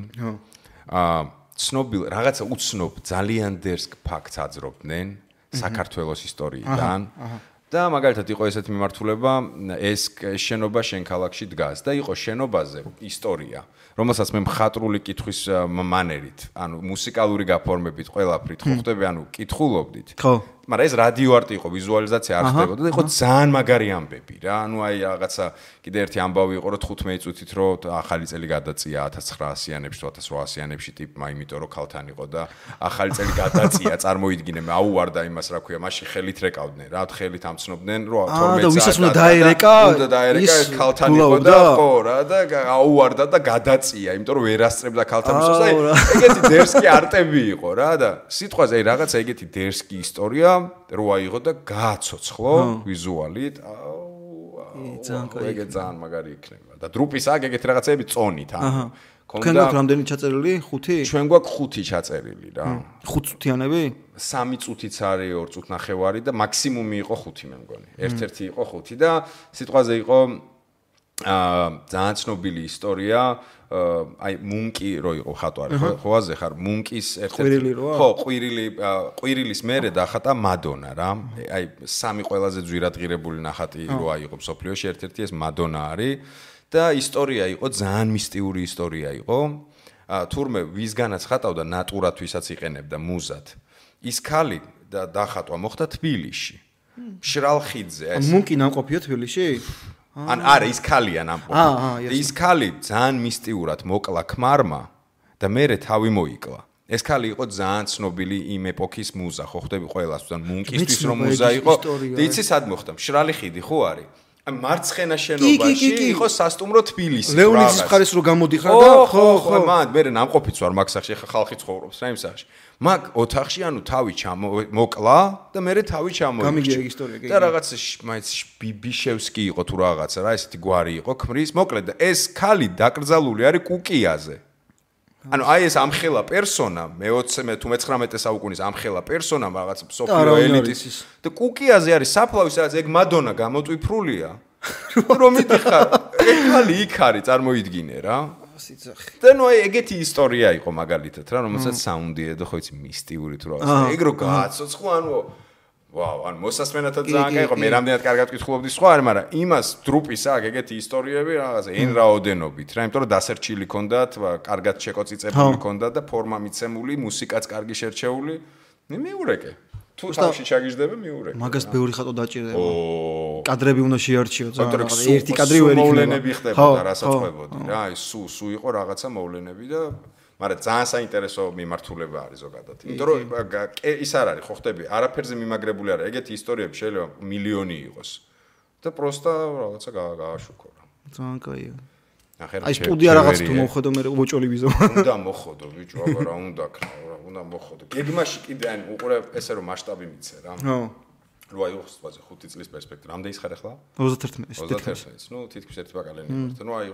ცნობილ რაღაცა უცნობ ძალიან დერსკ ფაქტს აძრობდნენ საქართველოს ისტორიიდან და მაგალითად იყო ესეთი მიმართულება ეს შენობა შენ ქალაქში დგას და იყო შენობაზე ისტორია რომელსაც მე მხატვრული კითხვის მანერით ანუ მუსიკალური გაფორმებით ყველაფრით ხო ხდები ანუ კითხულობდით ხო მაგრამ ეს რადიო არტი იყო ვიზუალიზაცია არ ხდებოდა და იყო ძალიან მაგარი ამბები რა ანუ აი რაღაცა კიდე ერთი ამბავი იყო რომ 15 წუთით რომ ახალი წელი გადაწია 1900-იანებში 1800-იანებში ტიპმა იმიტომ რომ ქალთან იყო და ახალი წელი გადაწია წარმოიდგინე მე აუვარდა იმას რა ქვია მაშინ ხელით რეკავდნენ რა ხელით ამცნობდნენ რომ 12 და ვისაც უნდა დაერეკა ეს ქალთან იყო და ხო რა და აუვარდა და გადაწია იმიტომ რომ ვერ ასწრებდა ქალთან მისოს და ეგეთი დერსკი არტები იყო რა და სიტყვაზე აი რაღაცა ეგეთი დერსკი ისტორია რო აიღო და გააცოცხლო ვიზუალით ეგ ძალიან მაგარი იქნება და დრუპის აქ ეგეთი რაღაცები წონით ანუ თქვენ გაქვთ რამდენი ჩაწერილი 5 ჩვენ გვაქვს 5 ჩაწერილი რა 5 წუთიანები 3 წუთიც არის 2 წუთ ნახევარი და მაქსიმუმი იყო 5 მე მგონი ერთ-ერთი იყო 5 და სიტყვაზე იყო ძალიან ცნობილი ისტორია აი მუნკი რო იყო ხატვარი ხო აზე ხარ მუნკის ერთ-ერთი ხო ყვირილის მერე დახატა მადონა რა აი სამი ყველაზე ძვირადღირებული ნახატი რო აიღო სოფლიოში ერთ-ერთი ეს მადონა არის და ისტორია იყო ძალიან მისტიური ისტორია იყო თურმე ვისგანაც ხატავდა ნატურათვისაც იყენებდა მუზად ის ქალი და დახატვა მოხდა თბილისში მშრალ ხიდზე ეს მუნკი ნამყოფია თბილისში ან არა ის ქალია ნამყოფი ის ქალი ძალიან მისტიურად მოკლა ქმარმა და მერე თავი მოიკლა ეს ქალი იყო ძალიან ცნობილი იმ ეპოქის მუზა ხო ხდები ყველას თან მუნკისთვის რომ მუზა იყო და იცი სად მოხდა მშრალი ხიდი ხო არის ან მარცხენა შენობაში იყო სასტუმრო თბილისი ლეონიდის მხარეს რო გამოდიხარ და ხო მან მე ნამყოფიც ვარ მაგ სახში ხა ხალხი ცხოვრობს რა იმ სახში მაგ ოთახში ანუ თავი მოკლა და მე თავი ჩამოიქცა გამიგია ეგ ისტორია და რაღაც მაინც ბიბიშევსკი იყო თუ რაღაცა რა ესეთი გვარი იყო ქმრის მოკლედ და ეს ქალი დაკრძალული არის კუკიაზე ანუ აი ეს ამხელა პერსონა მე-20 თუ მე-19 საუკუნის ამხელა პერსონა რაღაც სოფიო ელიტის და კუკიაზე არის საფლავის რაც ეგ მადონა გამოტვიფრულია რომ მიდიხარ ეგ ქალი იქ არის წარმოიდგინე რა სიცოცხლე და ნუ აი ეგეთი ისტორია იყო მაგალითად რა რომელსაც საუნდი ედო ხო იცი მისტიური თუ რაღაცა ეგ რო გააცოცხლო ანუ ვაუ ან მოსასმენათად ძალიან კაი იყო მე რამდენად კარგად ვკითხულობდი სხვა არის მაგრამ იმას დრუპის აქ ეგეთი ისტორიები რაღაცა ენ რაოდენობით რა იმიტომ რომ დასერჩილი ქონდათ კარგად შეკოწიწებული ქონდათ და ფორმა მიცემული მუსიკაც კარგი შერჩეული მე მიურეკე თუ თავში ჩაგიждდება მიურეკე მაგას ბევრი ხატო დაჭირდება კადრები უნდა შეარჩიო ძალიან ერთი კადრი ვერ იქნება მოვლენები ხდებოდა რასაწყობოდი რა აი სუ იყო რაღაცა მოვლენები და მაგრამ ძალიან საინტერესო მიმართულება არის ზოგადად. იმიტომ რომ ის არ არის, ხო ხდები, არაფერზე მიმაგრებული არა. ეგეთი ისტორიები შეიძლება მილიონი იყოს. და პროსტა რაღაცა გააშუქო რა. ძალიან კაია. აი სტუდია რაღაც თუ მოხდო მე უოჭოლი ვიზო. უნდა მოხდო ბიჭო, აბა რა უნდა ქნა, რა უნდა მოხდო. გეგმაში კიდე ან უყურე ესე რომ მასშტაბი მიცე რა. ხო. ნუ აი უხსვაზე 5 წლის პერსპექტივა. რამდენი ის ხარ ახლა? 31. ნუ თითქმის ერთი ბაკალიანი ვართ. ნუ აი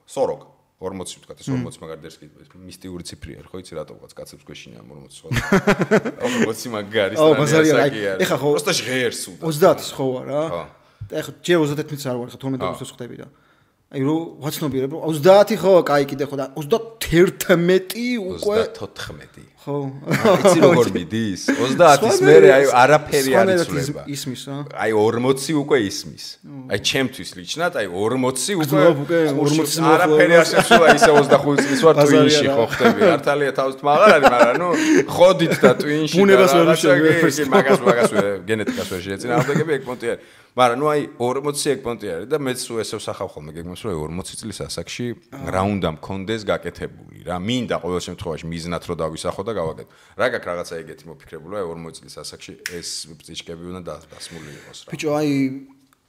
40 40 ვთქვა, ეს 40 მაგარ დერს კი მისტიური ციფრია, ხო იცი რატო ვყავს კაცებს გვეშინია 40 ხო? 40 მაგარი სტრანია. ეხა ხო просто ღერს უდო. 30-ის ხო ვარ რა? და ეხა ჯერ 31-იც არ ვარ, ხა 12 აგვისტოს ხდები და აი რო ვაცნობიერებ რომ 30 ხო, კაი კიდე ხო და 31 უკვე 34 ხო. იცი როგორ მიდის? 30-ის მერე აი არაფერი არ იცვლება. ისმის რა. აი 40 უკვე ისმის. აი ჩემთვის ლიჩნად აი 40 უკვე 40 არაფერი არ შეცვლა ისე 25 წლის ვარ ტვინში ხო ხდები. ართალია თავის თმაღარ არის, მაგრამ ნუ ხოდით და ტვინში ბუნებას ვერ მაგას გენეტიკას ვერ შეეწინააღმდეგები ეგ პონტი არის. მაგრამ ნუ აი 40 ეგ პონტი არის და მეც ესე ვსახავ ხოლმე გეგმას რომ 40 წლის ასაკში რა უნდა მქონდეს გაკეთებული რა. მინდა ყოველ შემთხვევაში მიზნად რომ დავისახო და გავაკეთო. რა გაქვს რაღაცა ეგეთი მოფიქრებული 40 წლის ასაკში ეს ბრძიჭკები უნდა დასმული იყოს რა. ბიჭო აი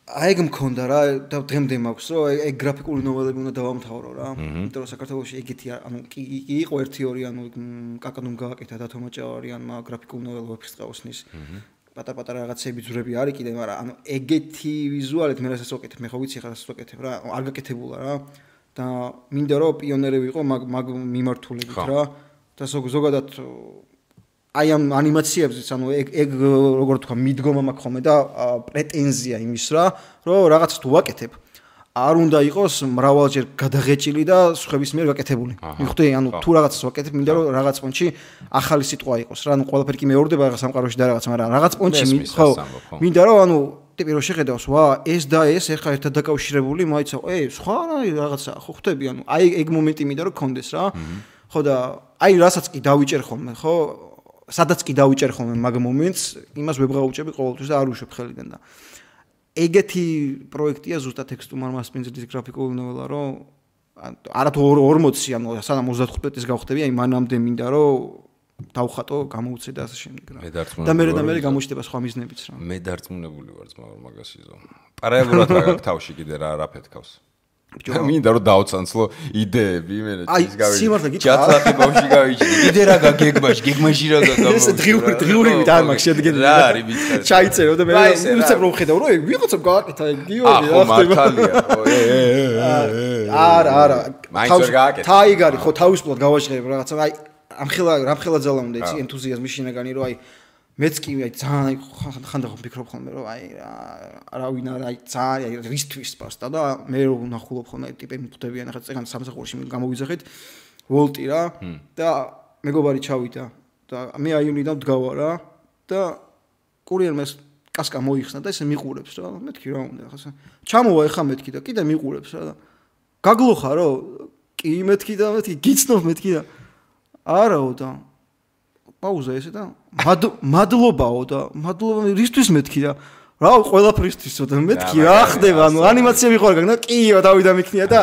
ეგ მქონდა რა და დღემდე მაქვს რომ ეგ გრაფიკული ნოველები უნდა დავამთავრო რა. იმიტომ რომ საქართველოში ეგეთი ანუ კი იყო 1-2 ანუ კაკადუმ გააკეთა და თომაჭავარიანმა გრაფიკულ ნოველებს ყავსნის. პატარ-პატარა რაღაცები ძვრები არის კიდე, მაგრამ ანუ ეგეთი ვიზუალით მე რასაც ვაკეთებ, მე ხო ვიცი ხა რასაც ვაკეთებ რა, არ გაკეთებულა რა. და მინდა რომ პიონერი ვიყო მაგ მიმართულებით რა. და ზოგადად აი ამ ანიმაციებზეც ანუ ეგ როგორ თქვა მიდგომა მაქვს ხოლმე და პრეტენზია იმის რა, რომ რაღაცა თუ ვაკეთებ არ უნდა იყოს მრავალჯერ გადაღეჭილი და სხვების მიერ გაკეთებული. მიხვდი, ანუ თუ რაღაცას ვაკეთებ, მინდა რომ რაღაც პონჩი ახალი სიტყვა იყოს რა, ანუ ყველაფერი კი მეორდება რაღაც სამყაროში და რაღაც, მაგრამ რაღაც პონჩი ხო. მინდა რომ ანუ ტიპი რომ შეხედავს, ვა, ეს და ეს ეხა ერთად დაკავშირებული, მაიცა, სხვა რაღაცა ხო ხვდები, ანუ აი ეგ მომენტი მინდა რომ გქონდეს რა. ხო და აი რასაც კი დავიჭერ ხოლმე, ხო? სადაც კი დავიჭერ ხოლმე მაგ მომენტს, იმას ვებღაუჭები ყოველთვის და არ უშვებ ხელიდან და ეგეთი პროექტია ზუსტად ტექსტუმარ მასპინძლის გრაფიკული ნოველა, რომ არათუ 40, ანუ სანამ 35-ის გავხდები, აი მანამდე მინდა რომ დავხატო, გამოუცე და ასე შემდეგ რა. და მე გამოჩნდება სხვა მიზნებიც რა. მე დარწმუნებული ვარ ძმა მაგასიზო. პარალელურად რა გაქვს თავში კიდე რა ფეთქავს. მინდა რომ დავცანცლო იდეები, იმენა ის გავიჭი. ჯათლახი ბავში გავიჭი. კიდე რა გეგმაში რა გაგამო. ეს დღიურებით არ მაქვს შედგენილი. რა არის ვიცი. ჩაიწერო და მე უცებ რომ ხედავ რომ ვიღაცამ გააკეთა ეგ გიორგი რა ხდება. მართალია. არა. თაიგარი ხო თავისუფლად გავაჟღერებ რაღაცა. აი რამხელა ძალა უნდა იცი ენთუზიაზმი შინაგანი რომ აი მეც კი აი ძალიან ხანდახან ვფიქრობ ხოლმე რომ აი რა ვინ არა აი ძალიან აი რისთვის პასტა და მე რო ვნახულობ ხოლმე ტიპები მხვდებიან ახლა წეგან სამსახურში გამოვიძახეთ ვოლტი რა და მეგობარი ჩავიდა და მე აიუნიდან ვდგავა რა და კურიერმა კასკა მოიხსნა და ესე მიყურებს რა მეთქი რა უნდა ახლა ჩამოვა ეხა მეთქი და კიდე მიყურებს რა და გაგლოხა რო კი მეთქი და მეთქი გიცნობ მეთქი და არაო და პაუზა ესე და მადლობაო და მადლობა რისთვის მეთქი და რა ყველაფრისთვისო და მეთქი რა ხდება ანუ ანიმაცია მიყვარგა და კიო დავიდა მიქნია და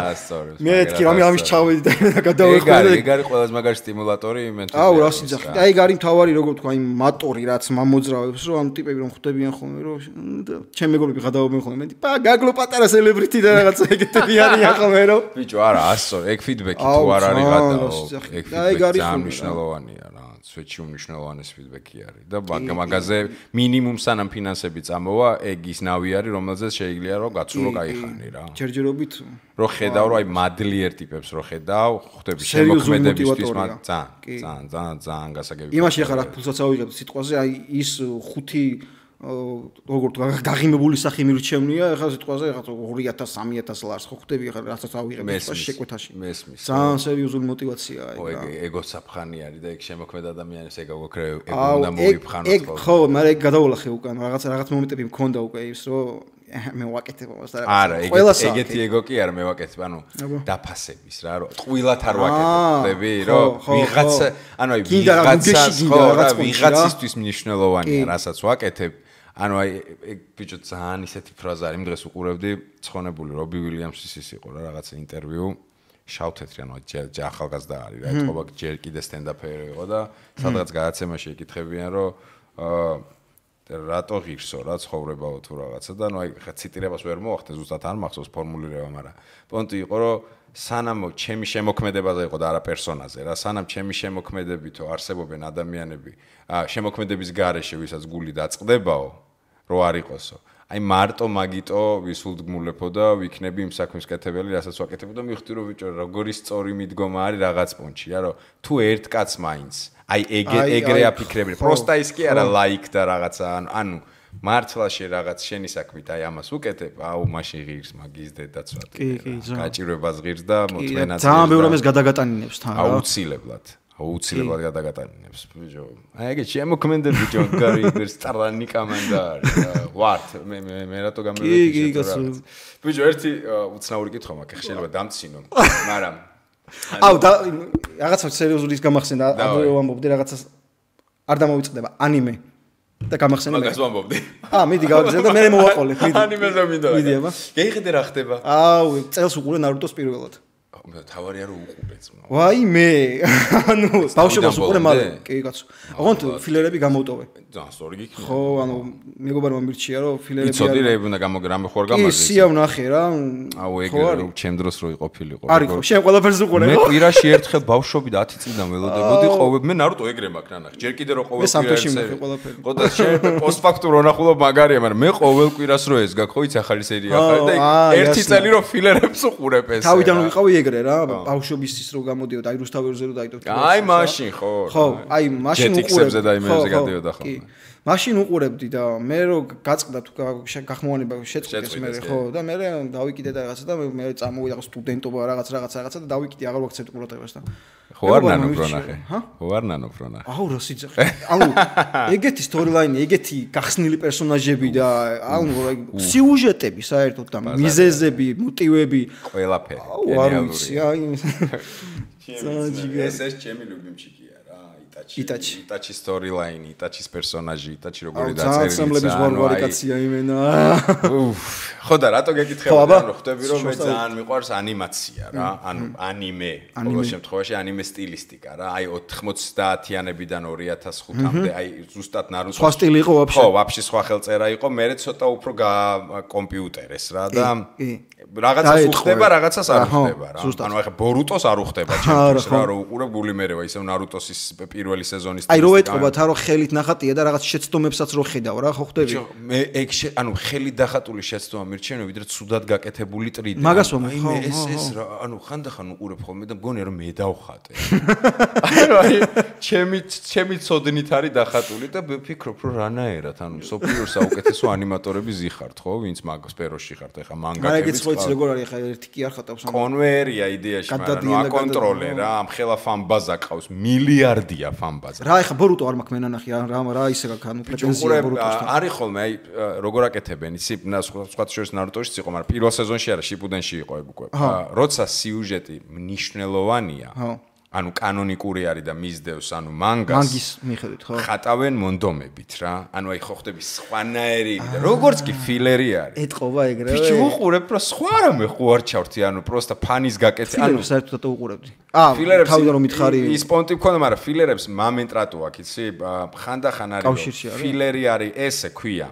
მეთქი რამე ამის ჩავედი და გადავეხმარე ეგ არის ყველაზე მაგარი სტიმულატორი იმენთუზიაზმის აუ რა სიძახი და ეგ არის მთავარი როგორ თქვა იმ მატორი რაც მომოძრავებს რომ ამ ტიპები რომ ხვდებიან ხოლმე რომ ჩემ მეგობრები გადავობენ ხოლმე მე გაგლო პატარა სელებრიტი და რაღაცა ეგეთები არიან ხოლმე რომ ბიჭო არა ასო ეგ ფიდბექი თუ არ არის გადაო ეგ ფიდბექი ძალიან მნიშვნელოვანია რა სვეტში უმნიშვნელოვანეს ფიდბექი არის და მაგაზე მინიმუმ სანამ ფინანსები წამოვა ეგ ის ნავი არის რომელზეც შეიძლება რომ გაცურო кайხანი რა ჯერჯერობით რო ხედავ რომ აი მადლიერ ტიპებს რო ხედავ ხვდები შემოქმედებისთვის ძალიან გასაგები იმაში ახლა რა ფულსაც ავიღებ სიტყვაზე აი ის ხუთი როგორ თქვა გაღიმებული სახე მირჩევნია ახლა სიტყვაზე ახლა 2000-3000 ლარს ხო ხვდები ახლა რასაც ავიღებ შეკვეთაში მესმის ძალიან სერიოზული мотиваციაა ეგ რა ეგო საფხანი არის და ეგ შემოქმედ ადამიანებს ეგ აგოქრე ეგ უნდა მოიფხანოს ეგ ხო მაგრამ ეგ გადაოლახე უკან რაღაც მომენტები მქონდა უკვე ის რომ მე ვაკეთებ ამას და არა ეგეთი ეგო კი არა მე ვაკეთებ ანუ დაფასების რა რომ ტყუილად არ ვაკეთებ ხვდები რომ ვიღაცა ანუ აი ვიღაცისთვის მნიშვნელოვანია რასაც ვაკეთებ ანუ აი ეგ ბიჭო ძალიან ისეთი ფრაზა არის იმ დღეს უყურებდი ცხონებული რობი უილიამსის ის იყო რა რაღაცა ინტერვიუ შავთეთრი ანუ ახალგაზრდა არის რა ეთყობა ჯერ კიდე სტენდაპერი იყო და სადღაც გადაცემაში ეკითხებიან რომ რატო ღირსო რა ცხოვრებაო თუ რაღაცა და ნუ აი ხა ციტირებას ვერ მოახდე ზუსტად არ მახსოვს ფორმულირება მაგრამ პონტი იყო რომ სანამ ჩემი შემოქმედებაზე იყო და არა პერსონაზე რა სანამ ჩემი შემოქმედებითო არსებობენ ადამიანები შემოქმედების გარეშე ვისაც გული დაწყდებაო რო არ იყოსო. აი მარტო მაგიტო ვისულდგმულეფო და ვიქნები იმ საქმის კეთებელი, რასაც ვაკეთებ და მივხვდი რომ ბიჭო როგორი სწორი მიდგომა არის რაღაც პუნჩი, რა რომ თუ ერთ კაცს მაინც აი ეგრე აფიქრები, პროსტა ის კი არა ლაიქ და რაღაცა, ანუ მართლა რაღაც შენი საქმით აი ამას უკეთებ, აუ მაშინ ღირს მაგის დედაცვად. გაჭირვებას ღირს და მოწმენაც. ძალიან ბევრი ამას გადაგატანინებს თან რა. აუცილებლად გადაგატანინებს ბიჭო. აი ეგ შემოქმედებ ბიჭო, გარი ის ტრანი კამანდა არის. ვართ მე რატო გამევედი შეთორა. ბიჭო, ერთი უცნაური კითხვა მაქვს, შეიძლება დამცინო, მაგრამ აუ და რაღაცა სერიოზული ის გამახსენდა, აღვე ვამბობდი რაღაცას არ დამოვიწყდება ანიმე და გამახსენე მე. მაგას ვამბობდი. მიდი გავაგზავნე და მე მოვაყოლე, მიდი. ანიმეზე მინდა. მიდი აბა. გეიხედე რა ხდება? აუ, წელს უყურე ნარუტოს პირველად. თავარია რომ უყურეც. ვაი მე. ანუ ბავშვობას უყურე მალე. კი კაცო. ოღონდ ფილერები გამოვტოვე. ძალიან სწორი გიქნა. ხო, ანუ მეგობარმა მირჩია რომ ფილერები არის. იცოდი რა უნდა გამოგრამე ხوار გამარჯვე. კი, სია ვნახე რა. აუ ეგ ჩემ დროს რო იყოფილიყო. არის ხო, შენ ყველაფერს უყურე. მე კვირაში ერთხელ ბავშვობი 10 წლიდან ველოდებოდი ყოველ მე ნარუტო ეგრე მაქვს ნანახ. ჯერ კიდე რო ყოველ კვირაში მე ყველაფერი. ხო და შენ პოსტფაქტურ ვნახულობ მაგარია, მაგრამ მე ყოველ კვირას რო ეს გაქვს, ხო იცი ახალი სერია ახალი და ერთი წელი რო ფილერებს უყურებ ეს. თავიდან ვიყავი ეგრე რა, ბავშვობის ის რო გამოდიოდა, აი რუსთავერზე რო დაიდო. აი მაშინ ხო. ხო, აი მაშინ უყურებ. ჯეტიქსებზე და იმებზე გადიოდა ხოლმე. მაშინ უყურებდი და მე რო გაწყდა თუ გახმოვანება შეწყდეს მე ხო და მე დავიკიდე და რაღაცა და მე წამოვიდა სტუდენტობა რაღაცა და დავიკიდე აღარ ვაქცევთ ყურადღებას და ხო არ ნანოფ რო ნახე. ხო არ ნანოფ რო ნახე. აუ რა სიძახე. ანუ ეგეთი სტორილაინი, ეგეთი გახსნილი პერსონაჟები და ანუ სიუჟეტები საერთოდ და მიზეზები, მოტივები ყველაფერი. აუ არ ვიცი, აი ეს ჩემი ლუბიმჩიკია რა, იტაჩი სტორილაინი, იტაჩის პერსონაჟი, იტაჩი როგორი დაწერილი. ძმლების ვარვარი კაცია იმენა. ხო და რატო გეკითხები რომ ხვდები რომ მე ძალიან მიყვარს ანიმაცია რა, ანუ ანიმე, ყოველ შემთხვევაში ანიმე სტილისტიკა რა, აი 90-იანებიდან 2005-მდე, აი ზუსტად ნარუტოს სხვა სტილი იყო ვაფშე. ხო, ვაფშე სხვა ხელწერა იყო, მე ცოტა უფრო კომპიუტერეს რა და რაღაცას უხდება, რაღაცას არ უხდება რა. ანუ ახლა ბორუტოს არ უხდება ჩემთვის რა, რომ უყურებ გული მერევა, ისევ ნარუტოს პირველი სეზონის აი რო ეტყობათ რა, რომ ხელით ნახატია და რაღაც შეცდომებსაც რო ხედავ რა, ხო ხვდები? მე ეგ ანუ ხელით დახატული შეცდომა მირჩენია, ვიდრე ცუდად გაკეთებული ტრიდი. მაგას ვამბობ, ხო, ეს რა, ანუ ხანდახან უყურებ ხოლმე და მგონია რომ მე დავხატე. აი ჩემი ცოდნით არის დახატული და ვფიქრობ რომ რანაერად, ანუ სოფლიოს საუკეთესო ანიმატორები ზიხართ, ხო, ვინც მაგ სფეროში ხართ, ეხა მანგაკები. როგორ არის ხა ერთი კი არ ხატავს კონვერია იდეაში, მაგრამ აკონტროლე რა, ამ ხელა ფანბაზა ყავს, მილიარდია ფანბაზა. რა ეხა ბორუტო არ მაქვს მენანახი რა ისე გაქვს, ანუ პრეტენზია ბორუტოსთან. არის ხოლმე, აი როგორ აკეთებენ, იცი, სხვა შორის ნარუტოშიც იყო, მაგრამ პირველ სეზონში არა, შიპუდენში იყო ეგ უკვე. როცა სიუჟეტი მნიშვნელოვანია, ანუ კანონიკური არის და მისდევს, ანუ მანგის მიხედვით, ხო? ხატავენ მონდომებით რა. ანუ აი ხო ხდები სხვანაირი და როგორც კი φιλერი არის. ეტყობა ეგრევე. ბიჭო უყურებ რა, სხვა რამე ხო არ ჩავთი, ანუ პროსტა ფანის გაკეთე. ანუ საერთოდ უყურებდი. ფილერებს თავიდან რომ მითხარი ის პონტი მქონდა, მაგრამ ფილერებს მომენტ რატო აქვს, იცი? ხანდახან არის ფილერი არის ესე ქვია.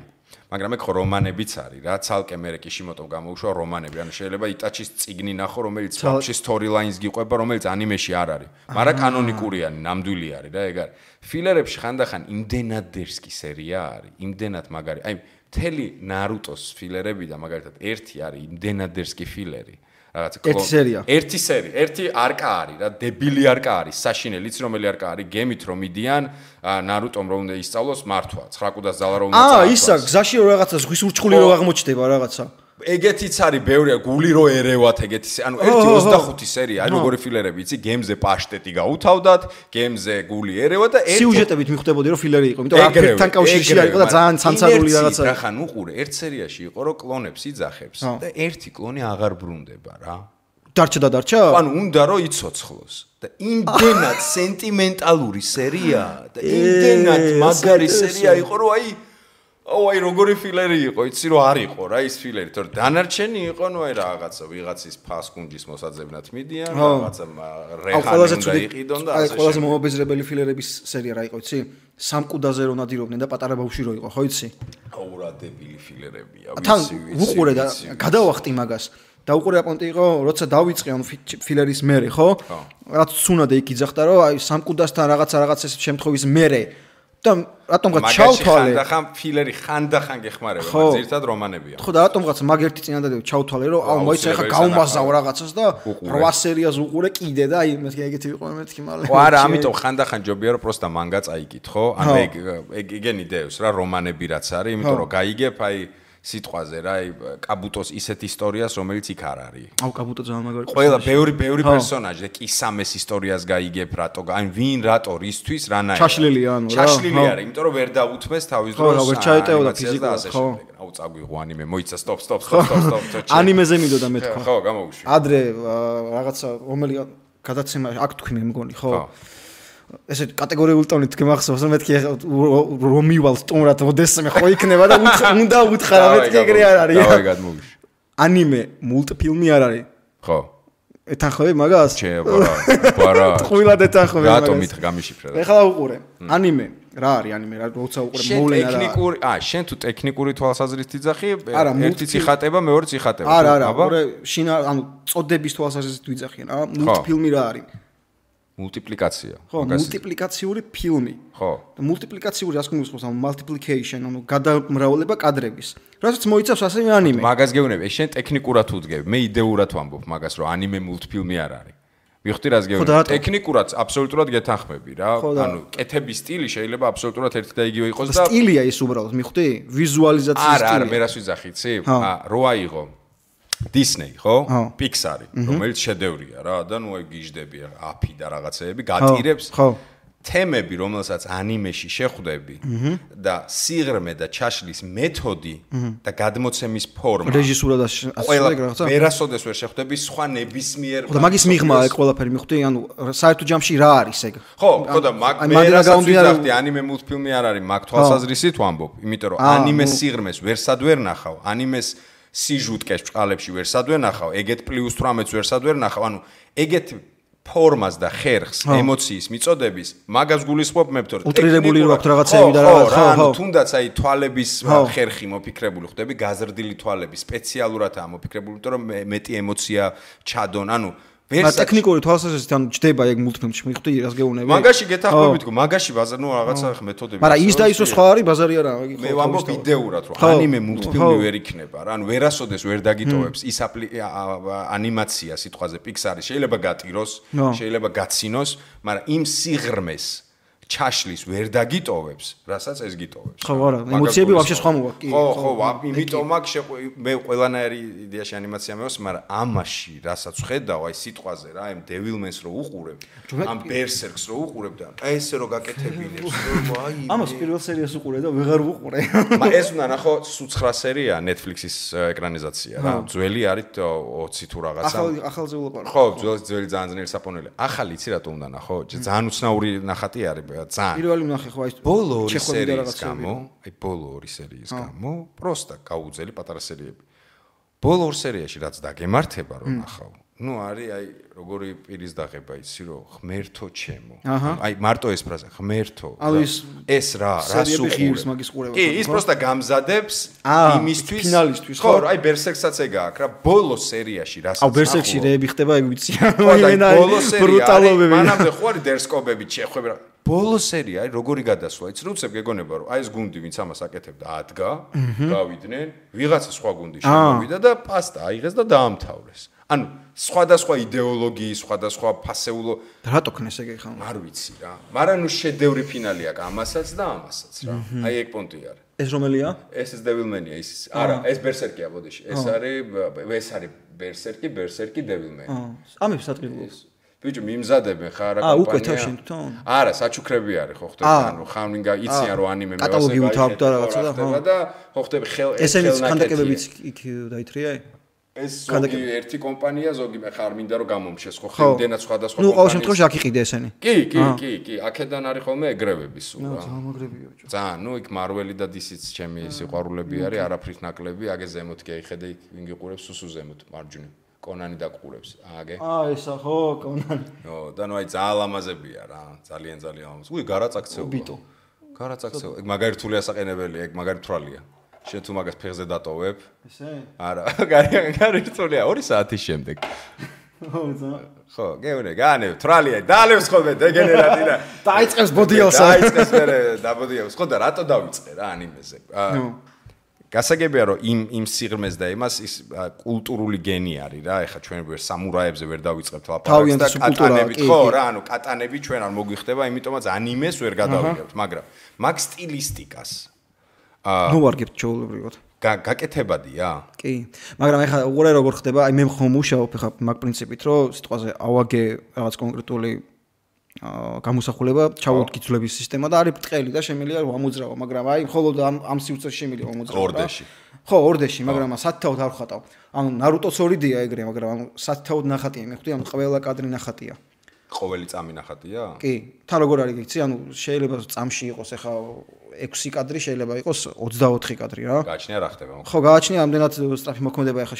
მაგრამ ეგ ხო რომანებიც არის რა, ცალკე მე კიშიმოტომ გამოუშვა რომანები, ანუ შეიძლება იტაჩის წიგნი ნახო, რომელიც ფაქში სტორილაინს გიყვება, რომელიც ანიმეში არ არის. მაგრამ კანონიკურია, ნამდვილი არის რა, ეგ არის. ფილერებში ხანდახან იმდენად დერსკი სერია არის, იმდენად მაგარი. აი, მთელი ნარუტოს ფილერები და მაგალითად ერთი არის იმდენად დერსკი ფილერი. ერთი სერია. ერთი არკა არის რა, დებილი არკა არის, საშინელი, იცი რომელი არკა არის, გემით რომ მიდიან, ნარუტომ რომ უნდა ისწავლოს მართვა, 9 კუდას ძალა რომ უნდა წაართვას. ისა, გზაში რო რაღაცა ზღვის ურჩხული რო აღმოჩნდება რაღაცა. ეგეთიც არის ბევრია, გული რო ერევათ ეგეთი, ანუ 1-25 სერია, აი როგორი ფილერები, იცი, გემზე პაშტეტი გაუთავდათ, გემზე გული ერევა და სიუჟეტებით მიხვდებოდი რომ ფილერი იყო, იმიტომ რომ აფერთან კავშირში არისო და ძალიან ცანცარული რაღაცა. რა ხან უყურე, ერთ სერიაში იყო რომ კლონებს იძახებს და ერთი კლონი აღარ ბრუნდება რა. დარჩა? ანუ უნდა რომ იცოცხლოს. და იმდენად სენტიმენტალური სერია და იმდენად მაგარი სერია იყო რომ აი როგორი ფილერი იყო, იცი რომ არ იყო რა ის ფილერი, თორე დანარჩენი იყო, ნუ აი რაღაცა ვიღაცის ფასკუნჯის მოსაძებნად მიდიან, რაღაცა რეჰანი უნდა იყიდონ და აი ყველაზე მომაბეზრებელი ფილერების სერია რა იყო, იცი? სამკუდაზე რო ნადირობდნენ და პატარა ბავშვი რო იყო, ხო იცი? აუ რა დებილი ფილერებია, ვიცი. უყურე და გადავახტი მაგას. და უყურე აპონტი იყო, როცა დავიწყე ანუ ფილერის მერე, ხო? რაც სუნადე იქ იძახდა, რომ აი სამკუდასთან რაღაცა ეს შემთხვევის მერე და რატომღაც ჩავთვალე ხანდახან ფილერი ხანდახან გეხმარება მაგრამ ზირთად რომანებია ხო და რატომღაც მაგ ერთი წინადადება ჩავთვალე რომ აუ მოიცა ხა გავმაზავ რაღაცას და 8 სერიას უყურე კიდე და აი მეთქი ეგეთი ვიყო მეთქი მალე ხო არა ამიტომ ხანდახან ჯობია რომ პროსტა მანგა წაიკითხო ანუ ეგ იგენი დევს რა რომანები რაც არის იმიტომ რომ გაიგებ აი სიტყვაზე რა აი კაბუტოს ისეთ ისტორიას რომელიც იქ არ არის. აუ კაბუტო ძალიან მაგარი. ყველა ბევრი პერსონაჟი და კისამეს ისტორიას გაიგებ რატო აი ვინ რატო რისთვის რანაირად. ჩაშლილია ანუ რა. ჩაშლილი არის, იმიტომ რომ ვერ დაუთმეს თავის დროს. ხო, ვერ ჩაეტეოდა ფიზიკურად, ხო. აუ წაგვიღო ანიმე, მოიცა სტოპ. ანიმეზე მიდოდა მე თქვა. ხო, გამოვუშვი. ადრე რაღაცა რომელი გადაცემა აქ თქვი მე მგონი, ხო? ესე კატეგორიული ტონით გმახსოვს რომ მეთქი რომ მივალ სტუმრად მოდესმე ხო იქნება და უნდა უთხრა მეთქი ეგრე არ არის. დავაი გადმოვიშვი. ანიმე მულტფილმი არ არის. ხო. ეთანხმები მაგას? ჩე, ბარა. ტყუილად ეთანხმები მაგას. რატომ მითხ გამიშიფრე რა. ეხლა უყურე. ანიმე რა არის ანიმე რა როცა უყურე მოვლენა რა. ტექნიკური, შენ თუ ტექნიკური თვალსაზრისით იძახი, ერთი წიხატება, მეორე წიხატება. არა, უყურე შინა ანუ წოდების თვალსაზრისით ვიძახიან, მულტფილმი რა არის? მულტიპლიკაცია. ხო, მულტიპლიკაციური ფილმი. ხო. და მულტიპლიკაციური რას გულისხმობს ამ multiplication, ანუ გადამრავლება კადრების. რასაც მოიცავს ასევე ანიმე. მაგას გეუბნები, შენ ტექნიკურად უდგები, მე იდეურად ვამბობ მაგას, რომ ანიმე მულტფილმი არ არის. მივხვდი რას გეუბნები? ტექნიკურად აბსოლუტურად გეთანხმები რა. ანუ კეთების სტილი შეიძლება აბსოლუტურად ერთი და იგივე იყოს და სტილია ის უბრალოდ, მივხვდი? ვიზუალიზაციის სტილი. არა, მე რას ვიძახი, იცი? რო აიღო Disney, ხო? Pixar-ი, რომელიც შედევრია რა და ნუ აი გიждები აფი და რაღაცეები გატირებს. ხო. თემები, რომელსაც ანიმეში შეხვდები და სიღრმე და ჩაშლის მეთოდი და გადმოცემის ფორმა. რეჟისურა და ასე რაღაცა. ვერასოდეს ვერ შეხვდები სხვა ნებისმიერ. ხო და მაგის მიღმა ეგ ყველაფერი მივხვდი, ანუ საერთო ჯამში რა არის ეგ? ხო და მე რასაც ვიზახდი ანიმე მულტფილმი არ არის, მაგ თვალსაზრისით ვამბობ, იმიტომ რომ ანიმეს სიღრმეს ვერსად ვერ ნახავ, ანიმეს სიჟუტკეს ბჭყალებში ვერსად ვერ ნახავ, ეგეთ პლუს 18-ს ვერსად ვერ ნახავ, ანუ ეგეთ ფორმას და ხერხს, ემოციის მიწოდების, მაგას გულისხმობ მე ვთქვი, უტრირებული რო აქვს რაღაცები და რაღაც, ხო, თუნდაც აი თვალების ხერხი მოფიქრებული ხდები, გაზრდილი თვალები სპეციალურადაა მოფიქრებული, იმიტომ რომ მეტი ემოცია ჩადონ, ანუ ტექნიკური თვალსაზრისით ანუ ჯდება ეგ მულტფილმში, მივხვდი რას გეუბნები? მაგაში გეთახმებით, მაგაში ბაზარ, ნუ რაღაცა მეთოდები. მაგრამ ის და ის სხვა არის, ბაზარი არა, მე ვამბობ იდეურად, რომ ანიმე მულტფილმი ვერ იქნება რა, ანუ ვერასოდეს ვერ დაგიტოვებს ის ანიმაცია სიტყვაზე Pixar-ი შეიძლება გატიროს, შეიძლება გაცინოს, მაგრამ იმ სიღრმეს ჩაშლის ვერ დაგიტოვებს, რასაც ეს გიტოვებს. ხო, არა, ემოციები ვაფშე სხვა მოვა. ხო, იმიტომ მაგ მე ყველანაირი იდეაში ანიმაცია მეოს, მაგრამ ამაში, რასაც ვხედავ, აი სიტყვაზე რა, აი Devilman-ს რო უყურებ, ამ Berserk-ს რო უყურებ და აი ესე რო გაკეთებინებს, რომ აი ამას პირველ სერიას უყურე და ვეღარ ვუყურე. მაგრამ ეს უნდა ნახო, 9 სერია Netflix-ის ეკრანიზაცია რა, ძველი არის 20 თუ რაღაცა. ახალზე ვლაპარაკ. ხო, ძველი ძალიან ძნელი საპონელი. ახალი იცი რატო უნდა ნახო? ძალიან უცნაური ნახატი არის. ძალიან. პირველი ნახე ხო აი ბოლო 2 სერიის გამო, აი ბოლო 2 სერიის გამო, პროსტა გაუძელი პატარა სერიები. ბოლო 2 სერიაში რაც დაგემართება რომ ნახავ. ნუ არის აი როგორი პირის დაღება იცი რომ ღმერთო ჩემო. აი მარტო ეს ფრაზა ღმერთო. ეს რა სუყურს მაგის ყურება. კი, ის პროსტა გამზადებს იმისთვის ფინალისტვის ხო, აი Berserk-საც ეგ აქვს რა, ბოლო სერიაში რასაც. აუ Berserk-ში რეები ხდება ეგ ვიცი. ბოლო სერია. მანამდე ხო არის დერსკობები ჩეხვები რა. ბოლო სერია აი როგორი გადასვლა იცი რომ უცებ გეგონება რომ აი ეს გუნდი ვინც ამას აკეთებდა ადგა გავიდნენ ვიღაცა სხვა გუნდი შემოვიდა და პასტა აიღეს და დაამთავრეს ანუ სხვადასხვა იდეოლოგიის სხვადასხვა ფასეულო რატო ქნეს ეგ ხა არ ვიცი რა მაგრამ ნუ შედევრი ფინალი აქვს ამასაც და ამასაც რა აი ეგ პონტი არის ეს რომელია ეს Devilman-ია ის არა ეს Berserk-ია ბოდიში ეს არის Berserk-ი Devilman ამებს საწყილოს ბიჭო მიმზადებენ ხარ რა კომპანია. უკვე თავშენ თვითონ? არა, საჩუქრები არის ხო ხდება, ანუ ხამლინგა იციან რომ ანიმე მე კატალოგი უთავებ და რაღაცა და ხო. და ხო ხდება ესენიც კანდაკებებიც იქ დაითრია? ეს ზოგი ერთი კომპანია, ზოგი მე ხარ მინდა რომ გამომშეს ხო ხიმდენად სხვადასხვა კომპანია. ნუ ყოველ შემთხვევაში აქ იყიდე ესენი. კი, აქედან არის ხოლმე ეგრევები სულ რა. ძალიან მაგრებია ბიჭო. ძალიან, ნუ იქ Marvel-ი და DC-ც ჩემი სიყვარულები არის, არაფრით ნაკლები, აგე ზემოთ კი აიხედე იქ ვინ გიყურებს სუსუ ზემოთ, მარჯვნივ. კონანი დაგყურებს. აგე. ესა ხო, კონანი. ო, და ნუ აი ძალიან ლამაზებია რა, ძალიან ლამაზ. უი, გარაწაქცეო. ბიტო. გარაწაქცეო. ეგ მაგარი რთული ასაყენებელია, ეგ მაგარი თვალია. შენ თუ მაგას ფეხზე დატოვებ? ესე? არა, გარი რთულია 2 საათის შემდეგ. ხო, გეუნე, განევ, თრალია, დაალევს ხოლმე დეგენერატი და დაიწყებს ბოდიელს. დაიწყებს მერე დაბოდიელს. ხო და რატო დავიწყე რა ანიმეზე? გასაგებია რომ იმ სიღრმეს და იმას ის კულტურული გენი არის რა. ეხლა ჩვენ ვერ სამურაებზე ვერ დავიწყებთ ლაპარაკს და კატანებით ხო რა, ანუ კატანები ჩვენ არ მოგვიხდება, იმიტომაც ანიმეს ვერ გადავიღებთ, მაგრამ მაგ სტილისტიკას ნოვარგებთ ჩაოლებრივად. გაკეთებადია? კი. მაგრამ ეხლა უყურე როგორ ხდება, აი მე ხომ მუშაობ ეხლა მაგ პრინციპით, რომ სიტყვაზე ავაგე რაღაც კონკრეტული გამოსახულება ჩავუდგიძვლების სისტემა და არის ბრტყელი და შემიძლია ამოძრავა, მაგრამ აი მხოლოდ ამ სივრცეში შემიძლია ამოძრავა. ორდეში. ხო, ორდეში, მაგრამ სათითაოდ არ ვხატავ. ანუ ნარუტოს 2D-ია ეგრე, მაგრამ ანუ სათითაოდ ნახატია, მე ხვდი, ანუ ყველა კადრი ნახატია. ყოველი წამი ნახატია? კი. თან როგორ არის გიცი, ანუ შეიძლება წამში იყოს ეხა 6 კადრი, შეიძლება იყოს 24 კადრი რა. გააჩნია რა ხდება? ხო, გააჩნია ამდენად სწრაფი მოქმედება ეხა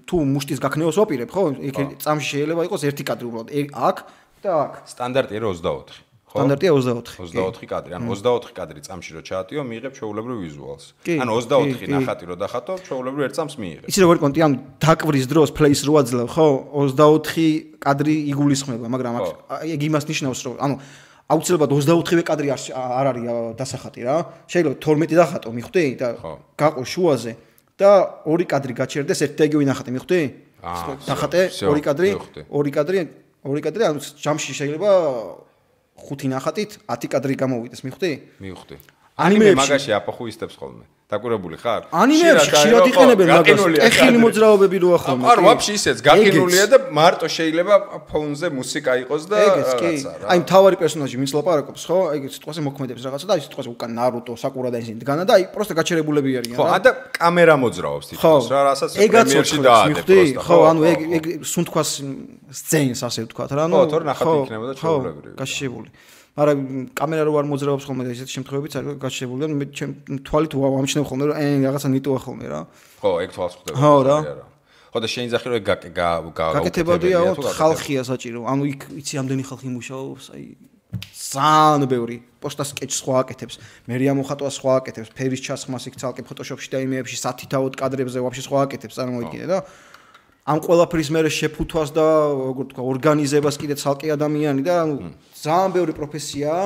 თუ მუშტის გაქნევას ვაპირებ, ხო? იქ წამში შეიძლება იყოს 1 კადრი უბრალოდ. აქ და აქ. სტანდარტია 24. ხო? სტანდარტია 24. 24 კადრი. ანუ 24 კადრი წამში რო ჩაატიო, მიიღებ ჩვეულებრივ ვიზუალს. ანუ 24 ნახატი რო დახატო, ჩვეულებრივ ერთ წამს მიიღებ. იცი როგორ კონტი, ანუ დაკვრის დროს ფლეის რო აძლევ, ხო? 24 კადრი იგულისხმება, მაგრამ ეგ იმას ნიშნავს, რომ ანუ აუცილებლად 24-ვე კადრი არ არის დასახატი რა. შეიძლება 12 დახატო, მიხვდი და გაყო შუაზე და 2 კადრი გაჩერდეს ერთ და იგივე ნახატი, მიხვდი? დახატე 2 კადრი, 2 კადრი, ანუ ჯამში შეიძლება 5 ნახატით 10 კადრი გამოვიდეს, მიხვდი? მივხვდი. ანიმე მაგაში აპოხუისტებს ხოლმე. დაკურებული ხარ? ანიმეებში ხშირად იყენებენ მაგას. ტექნიკური მოძრაობები როა ხოლმე. არ ვაფშე ისეც გაკინულია და მარტო შეიძლება ფონზე მუსიკა იყოს და რაღაცა რა. აი მთავარი პერსონაჟი ვინც ლაპარაკობს, ხო? აი სიტყვაზე მოქმედებს რაღაცა და აი სიტყვაზე უკან ნარუტო, საკურა და ისინი დგანა და აი პროსტა გაჩერებულები არიან რა. ხო, და კამერა მოძრაობს თითქოს რა, რასაც პრემიერში დაადე პროსტა. ხო, ანუ ეგ სუნთქვას სცენს ასე ვთქვათ რა, ანუ ხო, თორე ნახატი იქნება და ჩვეულებრივი. გაშიშებული. მაგრამ კამერა რო არ მოძრაობს ხოლმე და ისეთ შემთხვევებიც არის გაშიშებული და მე ჩემ თვალით ვამჩნევ ხოლმე რომ რაღაცა ნიტოა ხოლმე რა. ხო, ეგ თვალს ხვდება. ხო რა. ხო და შეინძახი რომ ეგ გაკეთებადია ხალხია საჭირო. ანუ იქ იცი ამდენი ხალხი მუშაობს, აი ძალიან ბევრი პოსტას სკეჩს სხვა აკეთებს, მერია მოხატვა სხვა აკეთებს, ფერის ჩასხმას იქ ცალკე ფოტოშოპში და იმეებში სათითაოდ კადრებზე ვაფშე სხვა აკეთებს, წარმოიდგინე და ამ ყველაფრის მერე შეფუთვას და როგორ თქვა ორგანიზებას კიდე ცალკე ადამიანი და ანუ ძალიან ბევრი პროფესიაა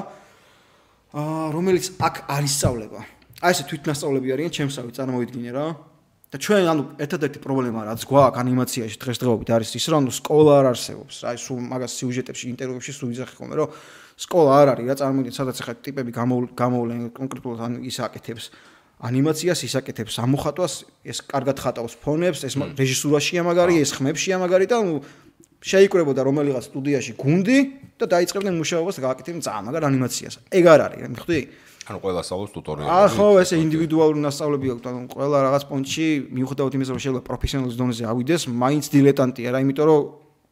რომელიც აქ არ ისწავლება. აი ესე თვითნასწავლები არიან ჩემსავე წარმოიდგინე რა. და ჩვენ ანუ ერთადერთი პრობლემა რაც გვაქვს ანიმაციაში დღესდღეობით არის ის რომ სკოლა არ არსებობს. აი სულ მაგას სიუჟეტებში ინტერვიუებში სულ იზახი ხოლმე რომ სკოლა არ არის რა წარმოიდგინე სადაც ახლა ტიპები გამოვლენ კონკრეტულად ანუ ის აკეთებს ანიმაციას ისაკეთებს ამოხატვას ეს კარგად ხატავს ფონებს ეს რეჟისურაშია მაგარი ეს ხმებშია მაგარი და ნუ შეიკრებოდა რომელიღაც სტუდიაში გუნდი და დაიწყებდნენ მუშაობას და გააკეთებდნენ ძალიან მაგარ ანიმაციას ეგ არ არის მიხვდი ანუ ყველა სწავლობს ტუტორიალები ხო ესე ინდივიდუალური მასწავლები აქვს ანუ ყველა რაღაც პონჩი მიუხედავად იმისა რომ შეიძლება პროფესიონალის დონეზე ავიდეს მაინც დილეტანტია რა იმიტომ რომ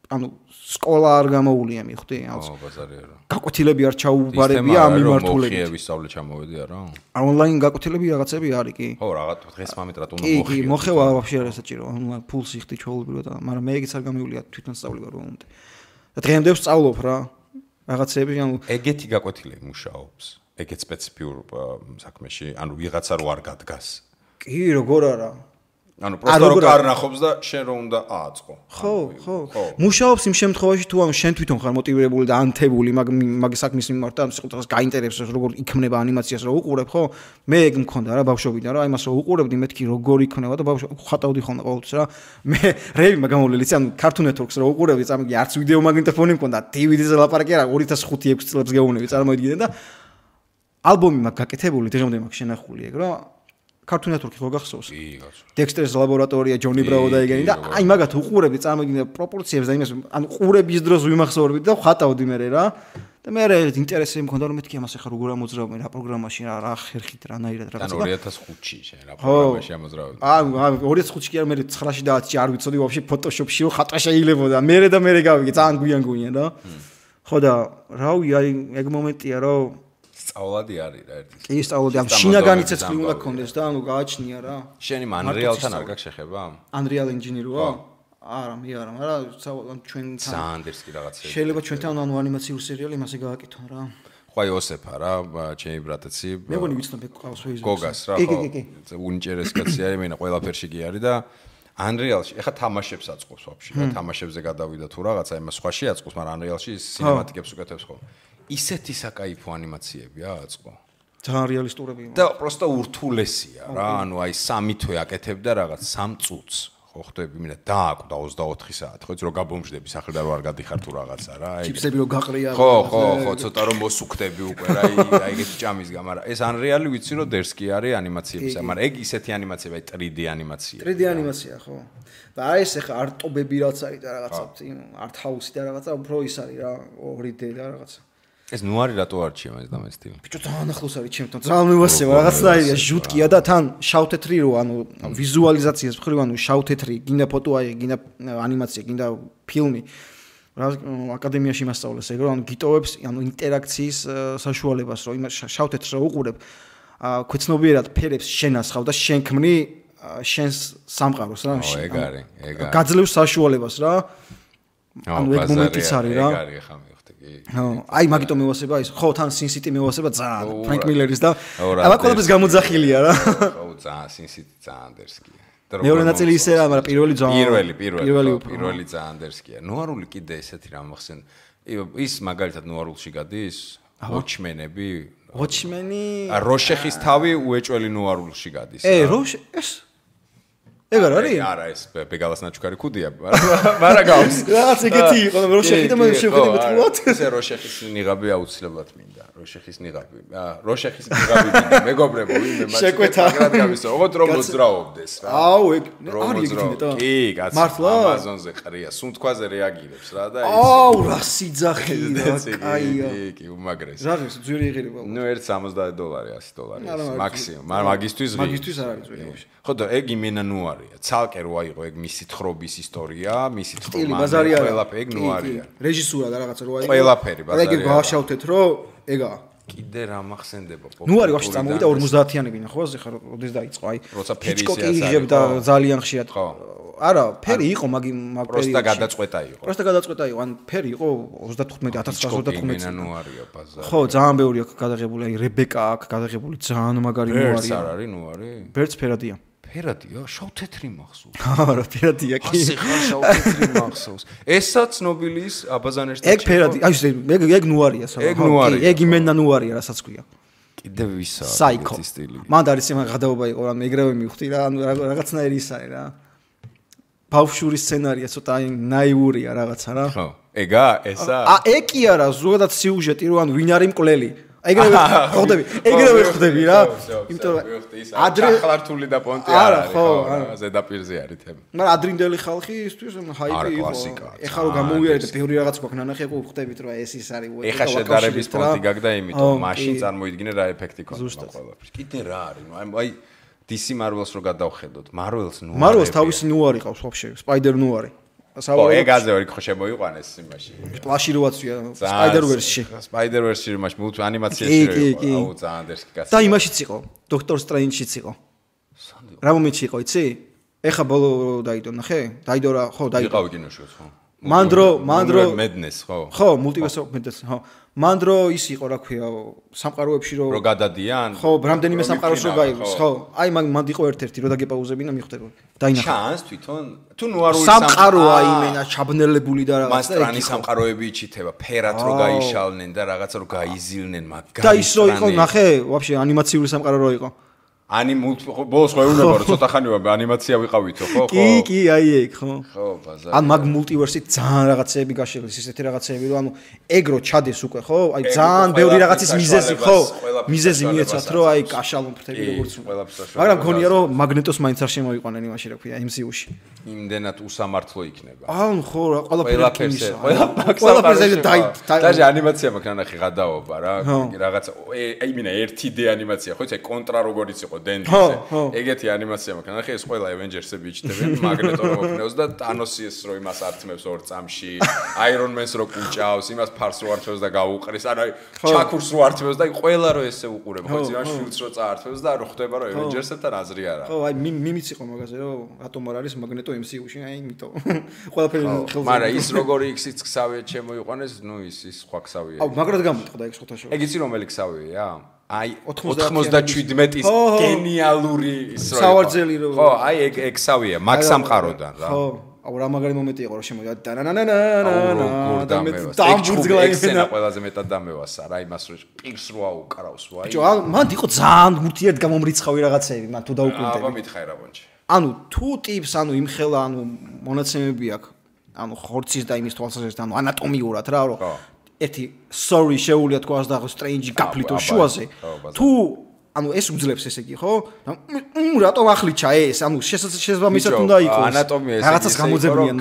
ანუ სკოლა არ გამოუულია მიხვდი აუ ბაზარია რა გაკვეთილები არ ჩაუბარებია ამ მიმართულებით მოხიების სწავლე ჩამოვედი არა ონლაინ გაკვეთილები რაღაცები არის კი ხო რაღაც დღეს მომეტრად უნდა მოხიო კი მოხევა ვაფშე არ ესაჭირო ონლაინ ფულს იხდი ჩაულებრივად მაგრამ მე ეგეც არ გამივლია თვითონ სწავლება რომ უნდა და დღემდე ვსწავლობ რა რაღაცები ანუ ეგეთი გაკვეთილები მუშაობს ეგეთ სპეციფიურ საქმეში ანუ ვიღაცა რო არ გადგას კი როგორ არა ანუ პროსტა რო კარნახობს და შენ რო უნდა ააწყო. ხო. მუშაობს იმ შემთხვევაში თუ ანუ შენ თვითონ ხარ მოტივირებული და ანთებული მაგ საქმის მიმართ და სიტყვას გაინტერესებს როგორ იქნება ანიმაციას რო უყურებ, ხო? მე ეგ მქონდა რა ბავშვობიდან რა, იმას რო უყურებდი მეთქი როგორ იქნება და ხატავდი ხოლმე ყოველთვის რა. მე რეები მაგამოვლელიც ანუ Cartoon Network-ს რო უყურებდი, წამიგი არც ვიდეო მაგნიტოფონი მქონდა, DVD-ზე ლაპარაკი არა 2005-6 წლებს გეუბნები, წარმოიდგინე და ალბომი მაგ გაკეთებული, დღემდე მაგ შენახული ეგ რა. Cartoon Network-ი ხო გახსოვს? კი, გახსოვს. Dexter's ლაბორატორია, Johnny Bravo და ეგენი და აი მაგათ უყურებდი, წარმოგიდგენთ პროპორციებს და იმას, ანუ ყურების დროს ვიმახსოვრებდი და ვხატავდი მე რა. და მე ინტერესი მქონდა რომ მეთქი ამას ახლა როგორ ამოძრავენ რა პროგრამაში რა ხერხით რანაირად რაღაცა. ანუ 2005-ში შენ რა პროგრამაში ამოძრავენ. ანუ 2005-ში კი არა მე 9-ში და 10-ში არ ვიცოდი ვაფშე ფოტოშოპში ხატვა შეიძლებოდა. მე და მე გავიგე, ძალიან გვიან რა. ხო და რავი აი ეგ მომენტია რომ სწავლადი არის რა ერთი. კი, სწავლადი. ამ შინაგანი ცეცხლი უნდა გქონდეს და ანუ გააჩნია რა. შენი Unreal-თან არ გაქვს შეხება? Unreal Engine-როა? არა, მე არა, მაგრამ ჩვენთან Sanders კი რაღაცა. შეიძლება ჩვენთან ანუ ანიმაციური სერიალი მასე გააკეთონ რა. ხო აი ოსეფა რა, ჩემი ბრატაცი. მე მგონი ვიცნობ ეკავს Facebook-ს. გოგას რა, ხო. უნიჭერეს კაცი არის, მენა ყველაფერში კი არის და Unreal-ში ეხა თამაშებს აწყობს ვაფშე და თამაშებზე გადავიდა თუ რაღაცა იმას სხვაში აწყობს, მაგრამ Unreal-ში სინემატიკებს უკეთებს ხოლმე. ისეთი საკაიფო ანიმაციებია აწყო. ძალიან რეალისტურები. და პროსტა ურთულესია რა, ანუ აი 3 თვე აკეთებდა რაღაც 3 წუთს. ხო ხდები, მინდა დააკვდა 24 საათი, ხო იცი რომ გაბომжდები სახლიდან რო არ გადიხარ თუ რაღაცა რა, აი. ჩიპსები რო გაყრია. ხო, ცოტა რომ მოსუქდები უკვე რა, აი ეგეთი ჭამის გამ, მაგრამ ეს Unreal-ი ვიცი რომ დერსკი არის ანიმაციებისა, მაგრამ ეგ ისეთი ანიმაციაა, აი 3D ანიმაცია. 3D ანიმაცია, ხო. და აი ეს ახლა არტობები რაც არის და რაღაცა, art house-ი და რაღაცა, უფრო ის არის რა, 2D და რაღაცა. ეს ნუარი რატო არჩია მას და მე სტილი? ბიჭო ძალიან ახლოს არის ჩემთან. ძალიან მევასება რაღაცნაირია, ჟუტკია და თან შავ-თეთრი რო, ანუ ვიზუალიზაციას მხრივ, ანუ შავ-თეთრი, გინდა ფოტო აი, გინდა ანიმაცია, გინდა ფილმი. რა აკადემიაში მასწავლეს ეგ რო, ანუ გიტოვებს, ანუ ინტერაქციის საშუალებას, რომ იმას შავ-თეთრს რო უყურებ, ქვეცნობიერად ფერებს შენასხავ და შენ ქმნი შენს სამყაროს რა. ეგ არის. გაძლევს საშუალებას რა. ანუ ეგ მომენტიც არის რა. ეგ არის ხა აი მაგიტომ მევასება ის ხო თან Sin City მევასება ძალიან ფრენკ მილერის და აბა ყველაფერს გამოძახილია რა ხო ძალიან Sin City ძალიან დერსკია მეორე ნაწილი ისე რა მაგრამ პირველი ძალიან დერსკია ნუარული კიდე ესეთი რამ ახსენ ის მაგალითად ნუარულში გადის Watchmen-ები Watchmen-ი როშეხის თავი უეჭველი ნუარულში გადის ეს ეგ არ არის? არა, ეს ბეგალას ნაჩუქარი ქუდია, მაგრამ გავს. რაღაც ეგეთი იყო, რომ როშეხი და მე შევხედე მეთქულად. ესე როშეხის ნიღაბი აუცილებლად მინდა. როშეხის ნიღაბი მინდა. მეგობრებო, ვინმე მას მაგრად გამისო. ოღონდ რომ მოძრაობდეს რა. აუ, ეგ არის ეგეთი ნეტა. კი, კაცო, Amazon-ზე ყრია, სუნთქვაზე რეაგირებს რა და ის. აუ, რა სიძახი რა, კაია. კი, უმაგრესი. ზაღის ძვირი იღირება. ნუ $170, $100 მაქსიმუმ. მაგრამ მაგისთვის არ არის ძვირი. ხო და ეგ იმენა ნუ არია. ცალკე რო აიღო ეგ მისი თხრობის ისტორია, მისი სტილი ბაზარი არა. ყველაფერი ეგ ნუ არია. რეჟისურა და რაღაცა რო აიღო. ყველაფერი ბაზარი. ეგ გავაშავთეთ რომ ეგაა. კიდე რა მახსენდება ნუ არის ვაფშე წამოვიდა 50-იანებინა ხო ასე ხარ როდეს დაიწყო აი. როცა ფერი იღებდა ძალიან ხშირად. არა, ფერი იყო მაგ პერიოდში. პროსტა გადაწყვეტა იყო. ან ფერი იყო 35,1935 წელი. ნუ არია ბაზარი. ხო, ძალიან ბევრი აქვს გადაღებული, აი რებეკა აქვს გადაღებული, ძალიან მაგარი ნუ არის. ბერც არ არის ნუ არის? ბერც ფერადია. ფერადია, შავ-თეთრი მახსოვს. არა, ფერადია კი. ასე ხარ შავ-თეთრი მახსოვს. ესაც ნობილის აბაზანერს ეგ ფერადი, აი ეგ ნუ არია საბა. ეგ იმენა ნუ არია, რასაც ქვია. კიდევ ვისა ეს სტილი. მან არის იმან გადაობა იყო, ანუ ეგრევე მივხვდი რა, ანუ რაღაცნაირი ის არის რა. ბავშვური სცენარია, ცოტა აი ნაიურია რაღაცა რა. ხო. ეგა, ესა? ეგ კი არა, ზოგადად სიუჟეტი რო ანუ ვინ არის მკვლელი. ეგრევე ხვდები რა. იმიტომ რომ ადრე ხლართული და პონტი არ არის ხო, ზედაპირზე არის თემა. მაგრამ ადრინდელი ხალხი ისთვის ჰაიპი იყო. ეხლა რომ გამოვიარეთ და ბევრი რაღაც გვაქვს ნანახი, ხო ხვდებით რომ ეს ის არის. ეხლა შედარების პონტი გაგდა იმიტომ მაშინ წარმოიდგინე რა ეფექტი ქონდა ყველაფერს. კიდე რა არის, აი DC Marvels რო გადავხედოთ, Marvels ნუ არის. Marvels თავისი ნუ არის ყავს ვაფშე, Spider ნუ არის. ეგ აზე ორი ხო შემოიყვანეს იმაში. Flash-ი რო აცვია Spider-Verse-ში. Spider-Verse-ში იმაში მულტი ანიმაციაში რო იყო, აუ ძალიან დერსკი კაცი. და იმაშიც იყო, Doctor Strange-შიც იყო. რა მომენტში იყო, იცი? ეხა ბოლო დაიდო, ნახე? დაიდო რა, ხო, დაიდო. იყავი კინოშიც, ხო. მანდრო Madness, ხო. ხო, Multiverse of Madness, ხო. მანდრო ის იყო, რა ქვია, სამყაროებში რო გადადიან. ხო, რამდენიმე სამყაროს რო გაიგოს, ხო. აი მანდ იყო ერთ-ერთი, რო დაგეპაუზებინა მიხვდება. დაინახა. ჩანს თვითონ თუ ნუარული სამყაროა იმენა ჩაბნელებული და რაღაცა. მასტრანი სამყაროები იჩითება, ფერად რო გაიშალნენ და რაღაცა რო გაიზილნენ, მაგარი. და ის რო იყო, ნახე, ვაფშე ანიმაციური სამყარო რო იყო. ბოლოს ხო ეუნება რომ ცოტა ხანი ანიმაცია ვიყავითო ხო ხო კი აი ეგ ხო ხო ბაზარი ან მაგ მულტივერსით ძალიან რაღაცეები გაშლილ ისეთი რაღაცეები რომ ანუ ეგ რო ჩადეს უკვე ხო აი ძალიან ბევრი რაღაცის მიზეზი ხო მიზეზი მიეცათ რომ აი კაშალო ფრთები როგორც მაგრამ გონია რომ მაგნეტოს მაინც არ შემოიყვანენ იმაში რა ქვია MCU-ში იმდენად უსამართლო იქნება ან ხო რა ყველაფერზე დაი ანიმაცია მაქვს ნახე გადაობა რა რაღაცა აიმინა 1D ანიმაცია ხო იცი კონტრა როგორიც იყო დენდიზე ეგეთი ანიმაცია მაქვს ნახე ეს ყველა Avengers-ები იჩნდებიან მაგნეტო რო მოფნევს და ტანოსის რო იმას ართმევს ორ წამში Iron Man-ს რო კუჭავს იმას ფარს რო ართმევს და გაუყრის ანუ ჩაქურს რო ართმევს და ყველა რო ესე უყურებ ხო იცი რა შულს რო წაართმევს და რო ხდება რომ Avengers-ებთან აზრი არა ხო აი მიმიც იყო მაგაზე რომ რატომ არ არის მაგნეტო MCU-ში აი იმიტომ ყველაფერი ხელზე მაგრამ ის როგორი X-იც ქსავია შემოიყვანეს ნუ ის სხვა ქსავია აუ მაგრად გამოიტყდა ეგ სხვათა შორის ეგ იცი რომელი ქსავია აი 97-ის გენიალური ის რო სავარძელი რო ხო აი ეგ სავია მაგ სამყაროდან რა ხო აუ რა მაგარი მომენტი იყო რომ შემოვიდა და დამბურძგლა ექსენა ყველაზე მეტად დამევასა რა იმას რო პირს რო აუკრავს ვაი ბიჭო მან იყო ძალიან მურთიერთ გამომრიცხავი რაღაცეები მან თუ დაუკვირდები აბა მითხარი რა ბონჩი ანუ თუ ტიპს ანუ იმხელა ანუ მონაცემები აქვს ანუ ხორცის და იმის თვალსაზრისით ანუ ანატომიურად რა რომ ერთი sorry შეუულია თქვას და strange გაფლიტო შუაზე თუ ანუ ეს უძლებს ესე იგი ხო რატომ ახლიჩა ეს ანუ შესაბამისად უნდა იყოს ანატომია ესე რაღაცას გამოძებნიან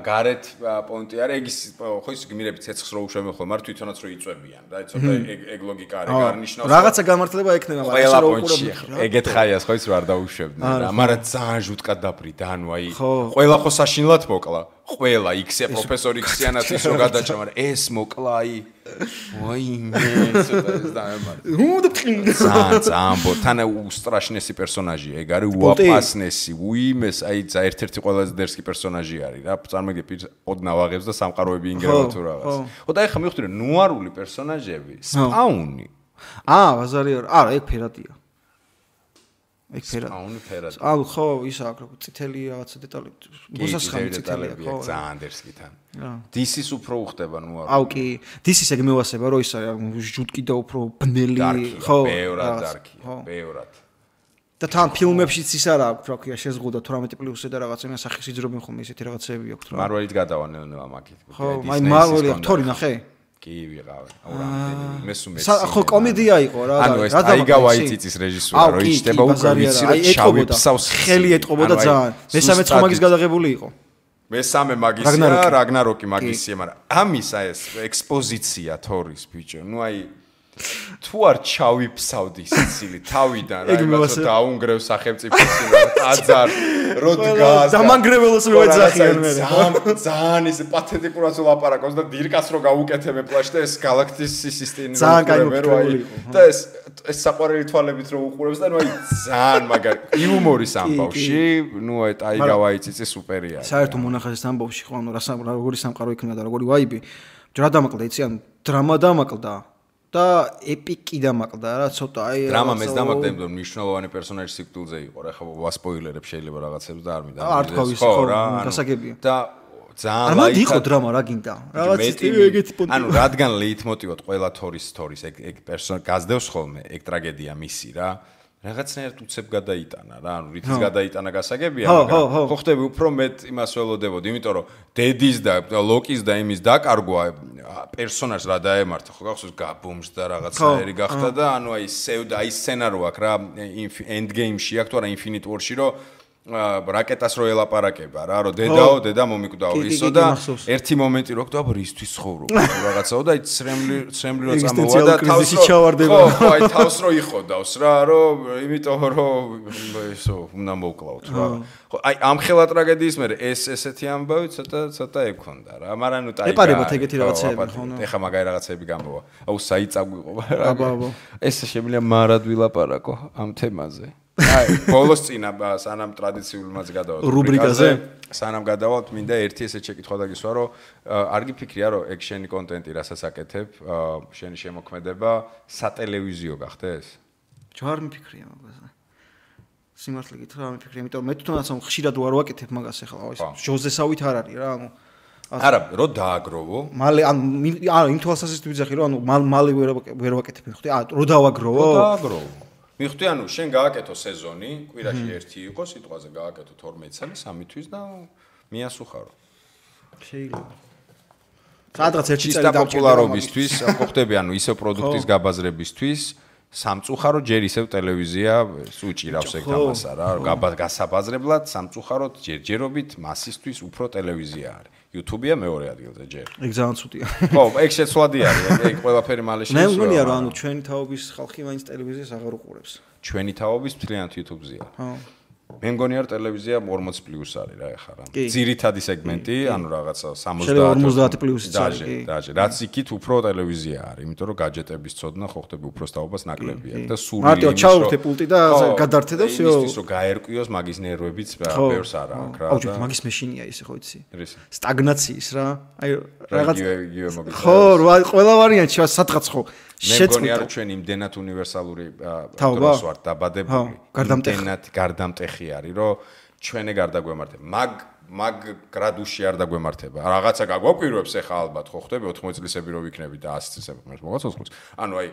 გარეთ პონტი არა ეგ ის ხო ის გმირები ცეცხლს რო უშვებენ ხოლმე არ თვითონაც რო იწვევიან და ცოტა ეგ ლოგიკა არის გარნიშნავს რაღაცა გამართლება ექნება მაგრამ ეს რო უყურებთ ეგეთ ხაიას ხო ის რო არ დაუშვებდნენ რა მაგრამ ძალიან ჟუტკად დაბრიდა ანუ აი ყველა ხო საშინლად მოკლა ყველა X-ია პროფესორი X-იანაც ის რო გადაჭრა მაგრამ ეს მოკლა აი ვაიმე ცოტა ეს დაემარ ძალიან ბოთანა უსტრაშნესი პერსონაჟია ეგ არის უაპასნესი უიმეს აი ერთ-ერთი ყველაზე დერსკი პერსონაჟი არის რა წარმოგიდგენთ ოდნავ აღებს და სამყაროები ინგერება თუ რაღაც ხო და ეხლა მივხვდი რომ ნუარული პერსონაჟები სპაუნი ბაზარი არა ეგ ფერადია ეგ ფერად ანუ ხო ის აქვს როგორ წითელი რაღაცა დეტალი მოსასხამი წითელია ხო ძალიან დერსკიდან DC-ს უფრო უხდება ნუარული აუ კი DC-ს ეგ მევასება რომ ის არის ჟუტკი და უფრო ბნელი ხო ბევრად დარკია ბევრად და თან ფილმებშიც ის არა აქვს რა ქვია შეზღუდა 18+-ზე და რაღაცა იმას სახის იძრობენ ხოლმე ისეთი რაღაცეები აქვს რა მარველით გადავანელნევა მაგით ხო აი მარველი აქტორი ნახე კი ვიღავენ აუ რამდენი მესუმე ხო კომედია იყო რა ანუ ეს ტაიგა ვაიტიცის რეჟისურა რო იჭდება უკვე ვიცი რომ შავი ფსავს ხელი ეტყობოდა ძალიან მესამე ცხომაგის გადაღებული იყო მესამე მაგისია რაგნაროკი მაგისია მაგრამ ამის აი ეს ექსპოზიცია თორის ბიჭო ნუ აი თუ არ ჩავიფსავდი სიცილი თავიდან რა იმას დაუნგრევ სახელმწიფოს ტაძარ რო დგას დამანგრეველოს რო ეძახიან მე ძალიან ის პათეტიკურად ლაპარაკობს და დირკას რო გაუკეთებ პლაშ და ეს გალაქტიკის სისტემი და ეს საყვარელი თვალებით რო უყურებს და ნუ აი ძალიან მაგარი იუმორის ამბავში ნუ აი ტაიგა ვაიტიცი სუპერია საერთო მონახაზის ამბავში ხო ანუ როგორი სამყარო იქნება და როგორი ვაიბი რა დამაკლდა იცი ანუ დრამა დამაკლდა და ეპიკი დამაკლდა რა ცოტა აი დრამა მეც დამაკლდა იმიტომ მნიშვნელოვანი პერსონაჟი სიკვდილზე იყო რა ხო ვასპოილერებ შეიძლება რაღაცებს და არ მინდა არ თქვა ვის ხო გასაგებია და ძალიან არა იყო დრამა რა გინდა რაღაც ეგეთი პონტი ანუ რადგან ლეიტმოტივად ყველა თორის ეგ პერსონაჟი გაზდევს ხოლმე ეგ ტრაგედია მისი რა რაღაცნაირად უცებ გადაიტანა რა ანუ რითიც გადაიტანა გასაგებია მაგრამ ხო ხდები უფრო მეტ იმას ველოდებოდი იმიტომ რომ დედის და ლოკის და იმის დაკარგვა პერსონაჟს რა დაემართა ხო გახსოვს გაბომს და რაღაცნაირი გახდა და ანუ აი სევდა აი სცენარო აქვს რა end game-ში აქვს თუ არა infinite war-ში რომ რაკეტას რო ელაპარაკება რა რომ დედა მომიკვდაო ისო და ერთი მომენტი რო გქვა რისთვის ცხოვრობ რაღაცაო და აი ცრემლი რო წამოვა და თავს ხო აი თავს რო იხოდავს რა რომ იმიტომ რომ ისო უნდა მოკლავთ რა ხო აი ამ ხელა ტრაგედიის მერე ესეთი ამბავი ცოტა ექონდა რა მაგრამ ნუ ტაიგა ეპარებათ ეგეთი რაღაცეები ხო ეხა მაგარი რაღაცეები გამოვა აუ საიწაგვიყო რა ეს შემიძლია მარად ვილაპარაკო ამ თემაზე აი ბოლოს წინა სანამ ტრადიციულმაც გადავალთ რუბრიკაზე სანამ გადავალთ მინდა ერთი ესე შეკითხვა დაგისვა რომ არ გიფიქრია რომ ეგ შენი კონტენტი რასაც აკეთებ შენი შემოქმედება სატელევიზიო გახდეს ჯერ მიფიქრია მაგაზე სიმართლე გითხრა არ მიფიქრია იმიტომ მე თვითონაც ხშირად ვარ ვაკეთებ მაგას ახლა ის ჟოზესავით არ არის რა ანუ არა რო დააგროვო მალე ანუ იმ თვალსაზრისით ვიძახი რომ ანუ მალე ვერ ვაკეთებ ხო რო დავაგროვო დააგროვო მიხდი ანუ შენ გააკეთო სეზონი, კვირაში ერთი იყო, სიტყვაზე გააკეთო 12 წელი, 3 თვის და მიასუხარო. შეიძლება. სადღაც ერთი წელი დავჭირდა პოპულარობისთვის, ხო ხდები ანუ ისევ პროდუქტის გაბაზრებისთვის, სამწუხარო ჯერ ისევ ტელევიზია სუჭირავს ეგ თამასა რა, გასაბაზრებლად სამწუხაროდ ჯერჯერობით მასისთვის უფრო ტელევიზია არის. YouTube-ია მეორე ადგილზე ჯერ. ეგ ძალიან ცუდია. ხო, ეგ შეცვლადი არის, ეგ ყველაფერი მალე შეცვლა. მე მგონია რომ ანუ ჩვენი თაობის ხალხი მაინც ტელევიზიას აღარ უყურებს. ჩვენი თაობის მთლიანად YouTube-ზეა. ხო. მე მგონი არ ტელევიზია 40+ არის რა ეხლა რა. ძირითადი სეგმენტი, ანუ რაღაცა 50+ დაჟე. რაც იქით უფრო ტელევიზია არის, იმიტომ რომ გაჯეტების წოდნა ხო ხდები უფრო სტაობას ნაკლებია და სული მარტო ჩაურთე პულტი და გადართე და всё. ის რომ გაერკვიოს მაგის ნერვებიც ბევრს არა აქვს რა. აუჯი მაგის მეშინია ისე ხო იცი? სტაგნაციის რა. აი რაღაც ხო, ყველა ვარიანტი სადღაც ხო. მე მგონი არ ჩვენ იმდენად უნივერსალური დროს ვართ დაბადებული. გარდამტეხი არის, რომ ჩვენი გარდაგვემართება. მაგ გრადუსში არ დაგვემართება. რაღაცა გაგვაკვირვებს ახლა ალბათ ხო ხდები 80 წლისები რო ვიქნები და 100 წლისები მოს მოგაც 20. ანუ აი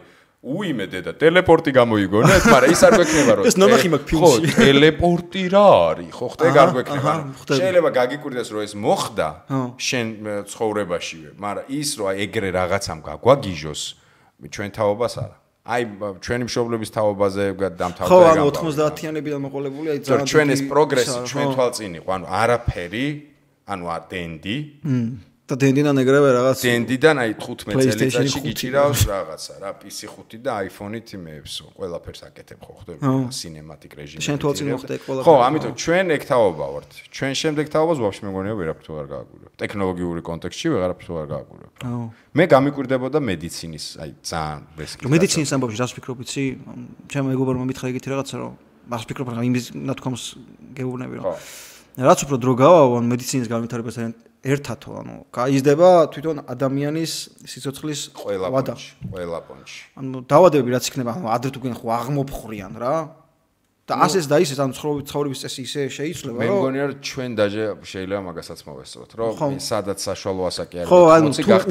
უიმე დედა ტელეპორტი გამოიგონეთ, მაგრამ ის არ გვექნება რომ ეს ნახი მაგ ფილმში. ხო, ტელეპორტი რა არის? ხო ხდები არ გვექნება. შეიძლება გაგიკვირდეს რომ ეს მოხდა შენ ცხოვრებაშივე, მაგრამ ის რომ აი ეგრე რაღაცამ გაგვაგიჟოს ჩვენ თაობას არა. აი ჩვენი მშობლების თაობაზე დამთავრდა ხო, ანუ 90-იანებიდან მოყოლებული, აი ძალიან ჩვენ ეს პროგრესი ჩვენ თვალწინ იყო, ანუ არაფერი, ანუ დენდი და დენდიდან ეგრევე რაღაც დენდიდან აი 15 წელიწადში გიჭირავს რაღაცა რა PC 5 და iPhone-ით მეებსო ყველაფერს აკეთებ ხო ხდები სინემატიკ რეჟიმში შენ თვალწინ მოხდა ეგ ყველაფერი ხო ამიტომ ჩვენ ეგ თაობა ვართ ჩვენ შემდეგ თაობას ვაფშე მეგონია ვერაფრით არ გააგვირებ ტექნოლოგიური კონტექსტში ვეღარაფრით არ გააგვირებ მე გამიკვირდებოდა მედიცინის აი ძალიან რესკი მედიცინის ამბავში რას ფიქრობ იცი ჩემო მეგობარმა მითხრა ეგეთი რაღაცა რომ მას ფიქრობ რა იმის ნათქვამს გეუბნები რომ რაც უფრო დრო გავავა მედიცინის განვითარებასთან ერთათო ანუ გაიზრდება თვითონ ადამიანის სიცოცხლის ყველა პონჩი ანუ დაავადებები რაც იქნება ანუ ადრე თუ გენ ხო აღმოფხრიან რა და ასეც და ისეც ანუ ცხოვრების წესი ისე შეიცვლება რომ მე მგონია რომ ჩვენ დაჟე შეიძლება მაგასაც მოვესწროთ რომ სადაც საშუალო ასაკი არის ხო ანუ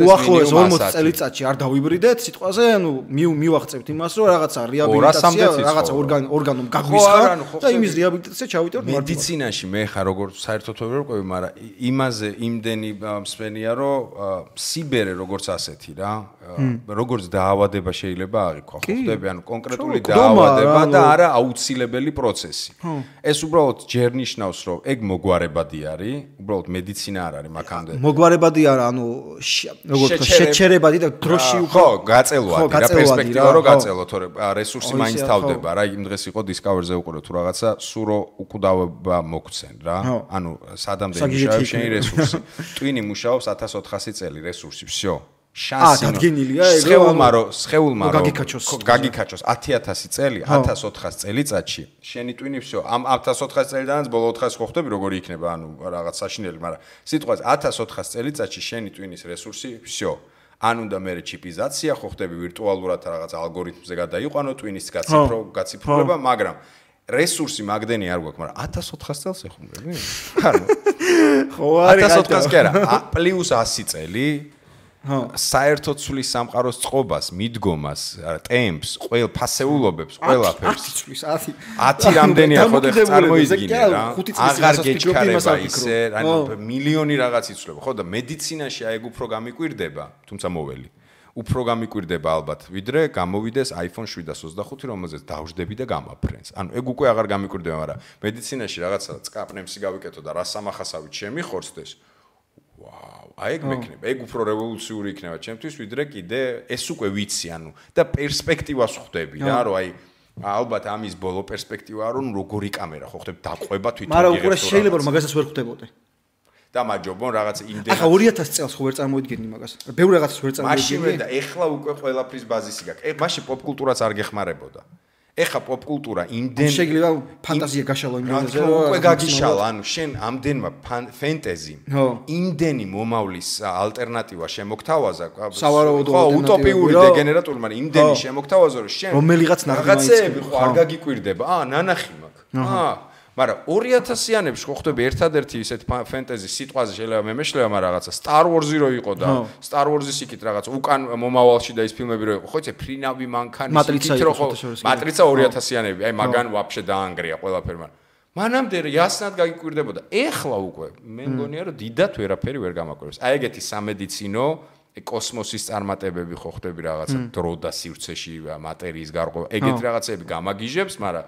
უახლოეს 40 წელიწადში არ დავიბრიდეთ სიტყვაზე ანუ მივახცევთ იმას რომ რაღაცა რეაბილიტაცია რაღაცა ორგანომ გაგვისხა და იმის რეაბილიტაცია ჩავიტაროთ მედიცინაში მე ხარ როგორ საერთოდ ვერ ვყვევი მაგრამ იმაზე იმდენი მსვენია რომ სიბერე როგორც ასეთი რა როგორც დაავადება შეიძლება აღიქვა ხო ხდები ანუ კონკრეტული დაავადება და არა აუცილებელი პროცესი. ეს უბრალოდ ჯერ ნიშნავს, რომ ეგ მოგვარებადი არის, უბრალოდ მედიცინა არ არის მაგამდე. მოგვარებადი არა, ანუ როგორც შეჩერებადი და დროში ხო, გაწელვადი რა პერსპექტივა რო გაწელო, თორე რესურსი მაინც თავდება რა, იმ დღეს იყო Discover-ზე უყურე თუ რაღაცა, სურო უკვდავება მოგვცენ რა. ანუ სადამდე მუშაობს შენი რესურსი. ტვინი მუშაობს 1400 წელი რესურსი, всё. შანსი სხეულმა გაგიქაჩოს 10000 წელი 1400 წელიწადში შენი ტვინი всё ამ 1400 წელიდანაც ბოლო 400 ხო ხდები როგორი იქნება ანუ რაღაც საშინელი მაგრამ სიტყვაზე 1400 წელიწადში შენი ტვინის რესურსი всё ან უნდა მე ჩიპიზაცია ხო ხდები ვირტუალურად რაღაც ალგორითმზე გადაიყვანო ტვინის გაციფრულება მაგრამ რესურსი მაგდენი არ გვაქვს მაგრამ 1400 წელს ეხუმრები ანუ ხო არის 1400 კი არა პლუს 100 წელი საერთოდ ცვლის სამყაროს წყობას, მიდგომას, ტემპს, ყველ ფასეულობებს, ყველაფერს. 10 რამდენია ხო და წარმოიდგინე რა. აღარ გეჩქარება ისე, ანუ მილიონი რაღაც იცვლება, ხო და მედიცინაში აი ეგ უფრო გამიკვირდება, თუმცა მოველი. უფრო გამიკვირდება ალბათ, ვიდრე გამოვიდეს iPhone 725, რომელზეც დავждები და გამაფრენს. ანუ ეგ უკვე აღარ გამიკვირდება, მაგრამ მედიცინაში რაღაცა წკაპნემსი გავიკეთო და რა სამახასავით შემიხორცდეს. აი ეგ მექნება, ეგ უფრო რევოლუციური იქნება ჩემთვის, ვიდრე კიდე ეს უკვე ვიცი, ანუ და პერსპექტივას ხვდები რა, რომ აი ალბათ ამის ბოლო პერსპექტივაა, რომ როგორი კამერა ხო ხვდები დაყვება თვითონ იღებს. მაგრამ უკვე შეიძლება რომ მაგასაც ვერ ხვდებოდე. და მაჯობონ რაღაც იმდენ. ახლა 2000 წელს ხო ვერ წარმოიდგენი მაგას. ბევრ რაღაცას ვერ წარმოიდგენი. მაშინ და ეხლა უკვე ყველაფრის ბაზისი გაქვს. მაშინ პოპკულტურაც არ გეხმარებოდა. ეხა პოპკულტურა იმდენ შეიძლება ფანტაზია გაშალო იმდენზე რომ უკვე გაგიშალა ანუ შენ ამდენმა ფენტეზი იმდენი მომავლის ალტერნატივა შემოგთავაზა სავარაუდო უტოპიური დეგენერატული მაგრამ იმდენი შემოგთავაზა რომ შენ რომელიღაც რაღაცეები ხო არ გაგიკვირდება ნანახი მაქვს მაგრამ 2000-იანებში ხო ხდები ერთადერთი ისეთ ფენტეზი სიტყვაზე შეიძლება მე მეშლება მაგრამ რაღაცა Star Wars-ი რო იყო და Star Wars-ის იქით რაღაც უკან მომავალში და ის ფილმები რო იყო ხო იცი ფრინავი მანქანის იქით რო ხო მატრიცა 2000-იანები აი მაგან ვაფშე დაანგრია ყველაფერი მაგრამ მანამდე яснად გაგიკვირდებოდა ეხლა უკვე მე მგონია რომ დიდათ ვერაფერი ვერ გამაკვირვებს აი ეგეთი სამედიცინო კოსმოსის წარმატებები ხო ხდები რაღაცა დრო და სივრცეში მატერიის გარღვევა ეგეთი რაღაცები გამაგიჟებს მაგრამ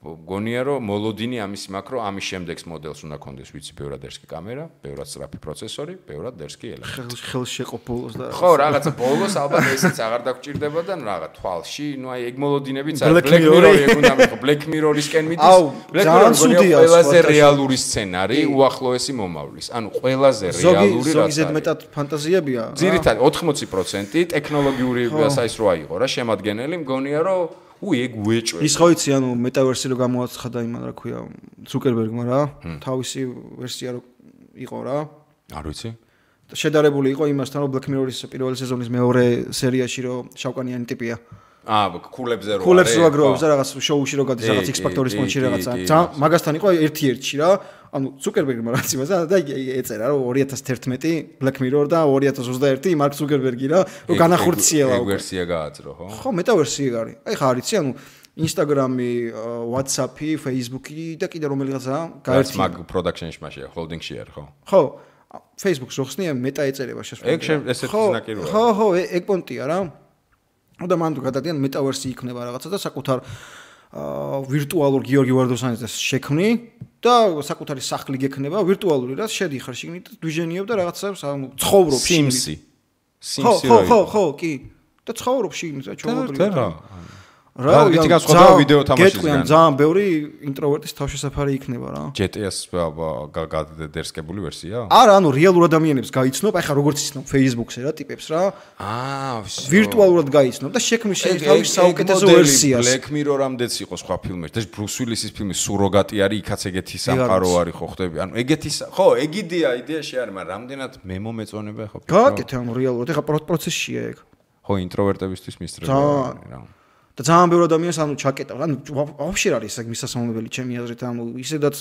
გონია რომ მოლოდინი ამის მაქვს რომ ამის შემდეგს მოდელს უნდა კონდეს ვიცი ბევრადერსკი კამერა, ბევრად სწრაფი პროცესორი, ბევრად ერსკი ელემენტი. ხელს შეყო ბოლოს და ხო, რაღაცა ბოლოს ალბათ ესეც აღარ დაგჭირდება და რაღაც თვალში, ნუ აი ეგ მოლოდინებიც არის Black Mirror-ი ეგ უნდა მიყო, Black Mirror-ისკენ მიდის. Black Mirror-ი ყველაზე რეალური სცენარი უახლოესი მომავლის. ანუ ყველაზე რეალური რაც ზოგადად მეტად ფანტაზიებია. ძირითადად 80% ტექნოლოგიური საის როა იყო რა შემადგენელი, მგონია რომ ეგ უეჭვე. ის ხო იცი, ანუ მეტავერსი რო გამოაცხადა იმან რა ქვია, ზუკერბერგმა რა, თავისი ვერსია რო იყო რა. არ ვიცი. შედარებული იყო იმასთან, რომ Black Mirror-ის პირველი სეზონის მეორე სერიაში რო შავკანიანი ტიპია. ქულებზე რო არის. ქულებს რო აგროვებს და რაღაც შოუში რო გადის რაღაც X Factor-ის მონჩი რაღაცა. მაგასთან იყო ერთ-ერთი რა. ანუ ზუკერბერგმა რაც იმასა და ეწერა რომ 2011 Black Mirror და 2021 მარკ ზუკერბერგი რა, რომ განახორციელა ეგ ვერსია გააძრო, ხო? ხო, მეტავერსი ეგ არის. აი ხა არიცი, ანუ Instagram-ი, WhatsApp-ი, Facebook-ი და კიდე რომელიღაცა გაერთიანდა. მაგ production-ში მაშია, holding-ში არის, ხო? ხო. Facebook-ს რო ხსნია, მეტა ეწერება შესაძლოა. ეგ ესეთი ზნაკი როა. ხო, ეგ პონტია რა. და მან თუ გადადიან მეტავერსი იქნება რაღაცა და საკუთარ ვირტუალურ გიორგი ვარდოსანიძეს შექმნი და საკუთარი სახლი გექნება ვირტუალური რა შედიხარ შიგნით და დვიჟენიებ და რაღაცას ცხოვრობ Sims-ი. ხო, კი. და ცხოვრობ შიგნით რა ჩაუღობრივ. რა ვიცი განსხვავდება ვიდეო თამაშისგან. ძალიან ბევრი ინტროვერტის თავშესაფარი იქნება რა. GTA-ს გადადერსკებული ვერსია? არა, ანუ რეალურ ადამიანებს გაიცნობ, აი ხა როგორც იცნობ Facebook-ზე რა ტიპებს რა. ვირტუალურად გაიცნობ და შექმნის თავის საუკეთესო ვერსიას. Black Mirror-ამდეც იყო სხვა ფილმები. და Bruce Willis-ის ფილმი სუროგატი არის, იქაც ეგეთი სამყარო არის ხო ხდები. ანუ ეგეთი ხო, ეგ იდეაში არის, მაგრამ რამდენად მემომეწონება ხო? გააკეთე ანუ რეალურად, ეხა პროცესშია ეგ. ხო, ინტროვერტებისთვის მისწრება რა. და ძალიან ბევრი ადამიანს ანუ ჩაკეტა. ანუ ვაფშე არის ეს მისასალმებელი ჩემი აზრით, ანუ ისედაც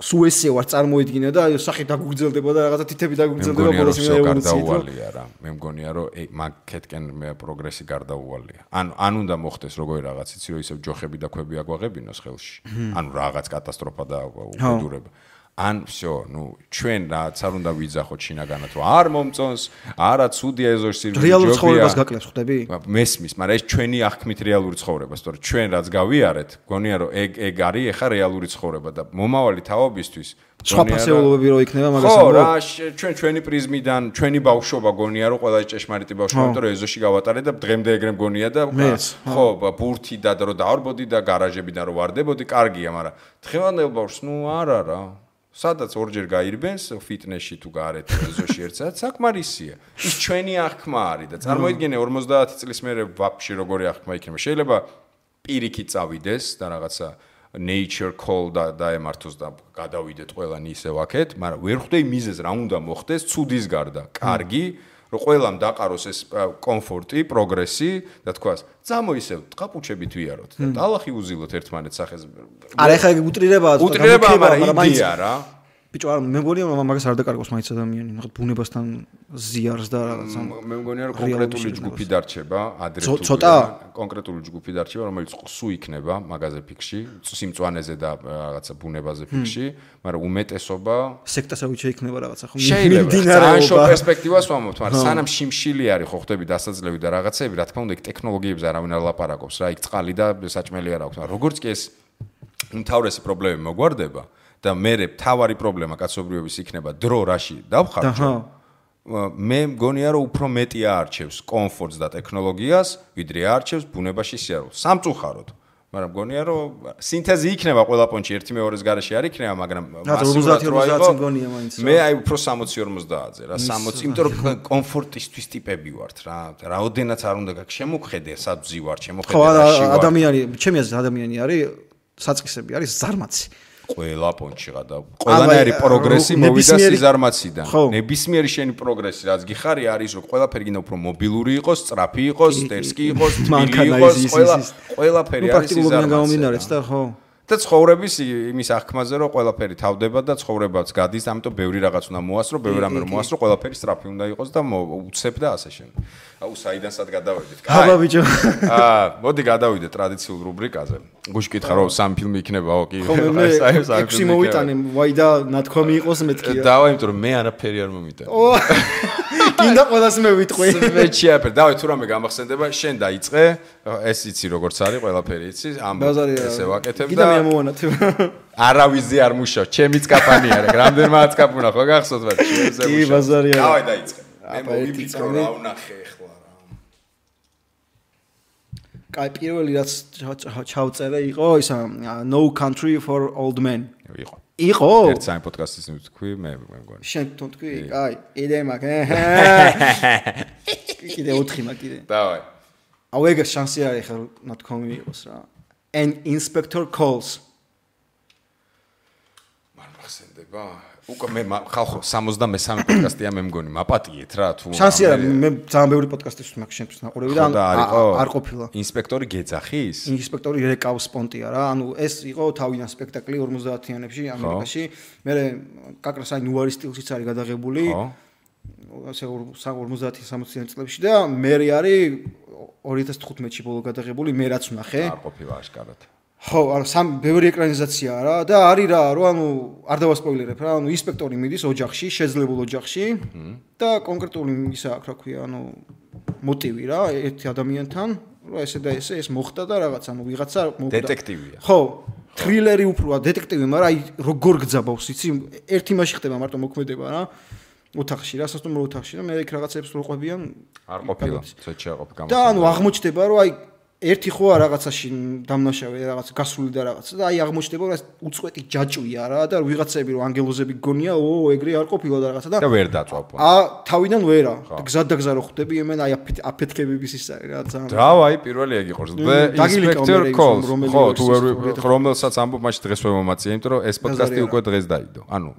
სულ ესე ვარ წარმოედგინე და სახე დაგუგრძელდება და რაღაცა თითები დაგუგრძელდება ბოლოს გარდაუვალია რა. მე მგონია რომ მაგეთკენ პროგრესი გარდაუვალია. ან უნდა მოხდეს როგორი რაღაც იცი რომ ისევ ჯოხები და ქვები აგვაღებინოს ხელში. ანუ რაღაც კატასტროფა და უბედურება. ან всё, ну, ჩვენ რაც არ უნდა ვიძახოთ შინაგანად, რომ არ მომწონს, არა ცუდია ეზოში სირბილი ჯობია. რეალურ ცხოვრებას გაკლებს ხდები? მესმის, მაგრამ ეს ჩვენი აღქმით რეალური ცხოვრება, სწორედ ჩვენ რაც გავიარეთ, გონია რომ ეგ არის ეხა რეალური ცხოვრება და მომავალი თაობისთვის სხვა ფასეულობები რო იქნება მაგას ხო, რა, ჩვენი პრიზმიდან, ჩვენი ბავშვობა გონია რომ ყველა ჭეშმარიტი ბავშვობა, იმიტომ რომ ეზოში გავატარე და დღემდე ეგრე მგონია და ხო, ბურთი და რომ დავარბოდი და გარაჟებიდან რომ ვარდებოდი, კარგია, მაგრამ დღევანდელ ბავშვს, ну, არა რა. სადაც ორჯერ გაირბენს ფიტნესში თუ გარეთ ეზოში ერთსა საკმარისია. ის ჩვენი აღქმა არის და წარმოიდგინე 50 წლის მერე ვაფშე როგორი აღქმა იქნება. შეიძლება პირიქით წავიდეს და რაღაცა nature call დაემართოს და გადავიდეთ ყველანი ისევ აქეთ, მაგრამ ვერ ხვდები მიზეზს რა უნდა მოხდეს ცუდის გარდა. კარგი, რომ ყველამ დაყაროს ეს კომფორტი, პროგრესი და თქვას, წამოისევ ტყაპუჩებით ვიაროთ და დალახი უზილოთ ერთმანეთს სახეს. არა, ეხლა ეგ უტრირებაა, მაგრამ იდეა რა. ბიჭო, არა, მე მგონია მაგას არ დაკარგავს მაინც ადამიანი, რაღაც ბუნებასთან ზიარს და რაღაცა. მე მგონია რომ კონკრეტული ჯგუფი დარჩება, ადრე თუ ცოტა კონკრეტული ჯგუფი დარჩება, რომელიც სუ იქნება მაგაზე ფიქში, სიმწვანეზე და რაღაცა ბუნებაზე ფიქში, მაგრამ უმეტესობა სექტასავით შეიქნება რაღაცა ხო? მიმდინარეობა. ან შო პერსპექტივას ვამბობთ, მაგრამ სანამ შიმშილი არის ხო ხდები დასაძლევი და რაღაცები, რა თქმა უნდა, ეგ ტექნოლოგიებზე არავინ არ ლაპარაკობს რა, იქ წყალი და საჭმელი არ აქვს, მაგრამ როგორც კი ეს უმთავრესი პრობლემები მოგვარდება და მე თავარი პრობლემა კაცობრიობის იქნება დრო რაში დავხარჯო. მე მგონია რომ უფრო მეტი აარჩევს კომფორტს და ტექნოლოგიას, ვიდრე აარჩევს ბუნებაში სიარულს. სამწუხაროდ. მაგრამ მგონია რომ სინთეზი იქნება ყველა პონჩი ერთი მეორის garaში არ იქნება, მაგრამ მასურად რო იყო მგონია მაინც. მე აი უფრო 60-50-ზე რა, 60, იმიტომ რომ კომფორტისთვის ტიპები ვართ რა. რაოდენაც არ უნდა გაქვს შემოხედე, სადზი ვარ, შემოხედე რაში ვარ. ადამიანი, ჩემი აზრით ადამიანი არის საწყისები არის ზარმაცი. ყველა პონჩი გადა. ყველანაირი პროგრესი მოვიდა სიზარმაციდან. ნებისმიერი შენი პროგრესი, რაც გიხარი არის, რომ ყველაფერი გინდა უფრო მობილური იყოს, სწრაფი იყოს, სტერსკი იყოს, თბილი იყოს, ყველაფერი არის სიზარმაციდან. და ხო. და ცხოვრების იმის აღქმაზე, რომ ყველაფერი თავდება და ცხოვრებაც გადის, ამიტომ ბევრი რაღაც უნდა მოასწრო, ბევრი რამე რომ მოასწრო, ყველაფერი სწრაფი უნდა იყოს და უცებ და ასე შემდეგ. აუ საიდანსად გადავედით. აბა ბიჭო. მოდი გადავიდეთ ტრადიციულ რუბრიკაზე. გუშინ კითხა რომ სამი ფილმი იქნება, ოკი. ხო მე 6 მოვიტანე, ვაი და ნათქვამი იყოს მეთქია. დავა, იმიტომ რომ მე არაფერი არ მომიტანე. კიდე ყველას მე ვიტყვი. მეჩი აფერ, დავай თუ რამე გამახსენდება, შენ დაიწყე, ეს იცი როგორც არის, ყველაფერი იცი, ამბობ ესე ვაკეთებ და კიდე მე ამოვანათებ. არავიზი არ მუშაობს, ჩემიც კაპანი არა, რამდენმაც კაპუნა ხო გახსოვთ მათ შევზე. კი, ბაზარი არა. დავай დაიწყე. მე მოვიფიქრო რა ვნახე ახლა რა. კაი, პირველი რაც ჩავწერე იყო ისა No Country for Old Men. იყო? ერთ საერთო პოდკასტის თქვი, მე მგონი. შენ თვითონ თქვი? კაი, კიდე მაგ. კიდე 4 მაგ კიდე. დავай. აუ ეგ შანსი არის ხა ნათქვამი იყოს რა. An inspector calls. მან მახსენდება? უკვე მე ხალხო 63 პოდკასტია მე მგონი, მაპატიეთ რა თუ. შანსი არა, მე ძალიან ბევრი პოდკასტის მაგ შენთვის ნაყურები და არ ყოფილა. ინსპექტორი გეძახის? ინსპექტორი რეკავს პონტია რა. ანუ ეს იყო თავიდან სპექტაკლი 50-იანებში ამერიკაში. მე კაკრას აი ნუარის სტილშიც არის გადაღებული. ხო. ასე 50-60-იან წლებში და მე არის 2015-ში ბოლო გადაღებული, მე რაც ვნახე. არ ყოფილა აშკარად. ხო, ანუ ბევრი ეკრანიზაციაა რა და არის რა, რომ ანუ არ დავასპოილერებ რა, ანუ ინსპექტორი მიდის ოჯახში, შეძლებულ ოჯახში და კონკრეტული ისა აქვს რა ქვია, ანუ მოტივი რა, ერთი ადამიანთან, რომ ესე და ესე ეს მოხდა და რაღაც, ანუ ვიღაცა მოხდა. დეტექტივია. ხო, თრილერი უფროა, დეტექტივი, მაგრამ აი როგორ გძაბავს, იცი, ერთი მასში ხდება მარტო მოქმედება რა. ოთახში რა, სასტუმრო ოთახში და მე იქ რაღაცებს როყვებიან. არ ყოფილა, ცოტა შეაყოფ გამოსა. და ანუ აღმოჩნდება, რომ აი ერთი ხო რაღაცაში დამნაშავე რაღაც გასული და რაღაცა და აი აღმოჩნდება რომ უწყვეტი ჯაჭვია რა და ვიღაცები რომ ანგელოზები გონია ეგრე არ ყოფილა და რაღაცა და ვერ დაწვავ. თავიდან ვერა და გზად და გზა რო ხვდები იმენ აი აფეთქებების ის არის რა ძალიან. დავაი პირველი ეგ იყოს. Inspector Calls. ხო თუ რომელსაც ამბობ მაშინ დღეს ვერ მომაწია, იმიტომ რომ ეს პოდკასტი უკვე დღეს დაიდო. ანუ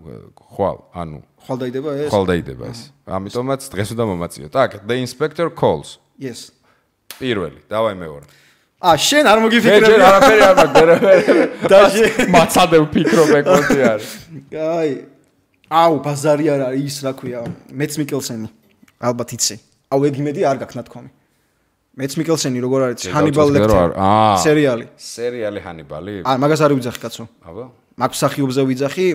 ხვალ დაიდება ეს. ხვალ დაიდება ეს. ამიტომაც დღეს უნდა მომაწიო. Так, The Inspector Calls. Yes. პირველი, დავაი მეორე. შენ არ მოგიფიქრებ. მე არაფერი არ მაქვს. და მაცადე ვფიქრობ ეგ კონტი არის. აი. აუ, ბაზარი არ არის ის რა ქვია, მეც მიკელსენი. ალბათ იცი. აუ, ეგ იმედი არ გაქვს ნათქვამი. მეც მიკელსენი როგორ არის ჰანიბალ ლექტერი. სერიალი. სერიალი ჰანიბალი? მაგას არ ვიძახი კაცო. აბა. მაგ მსახიობზე ვიძახი,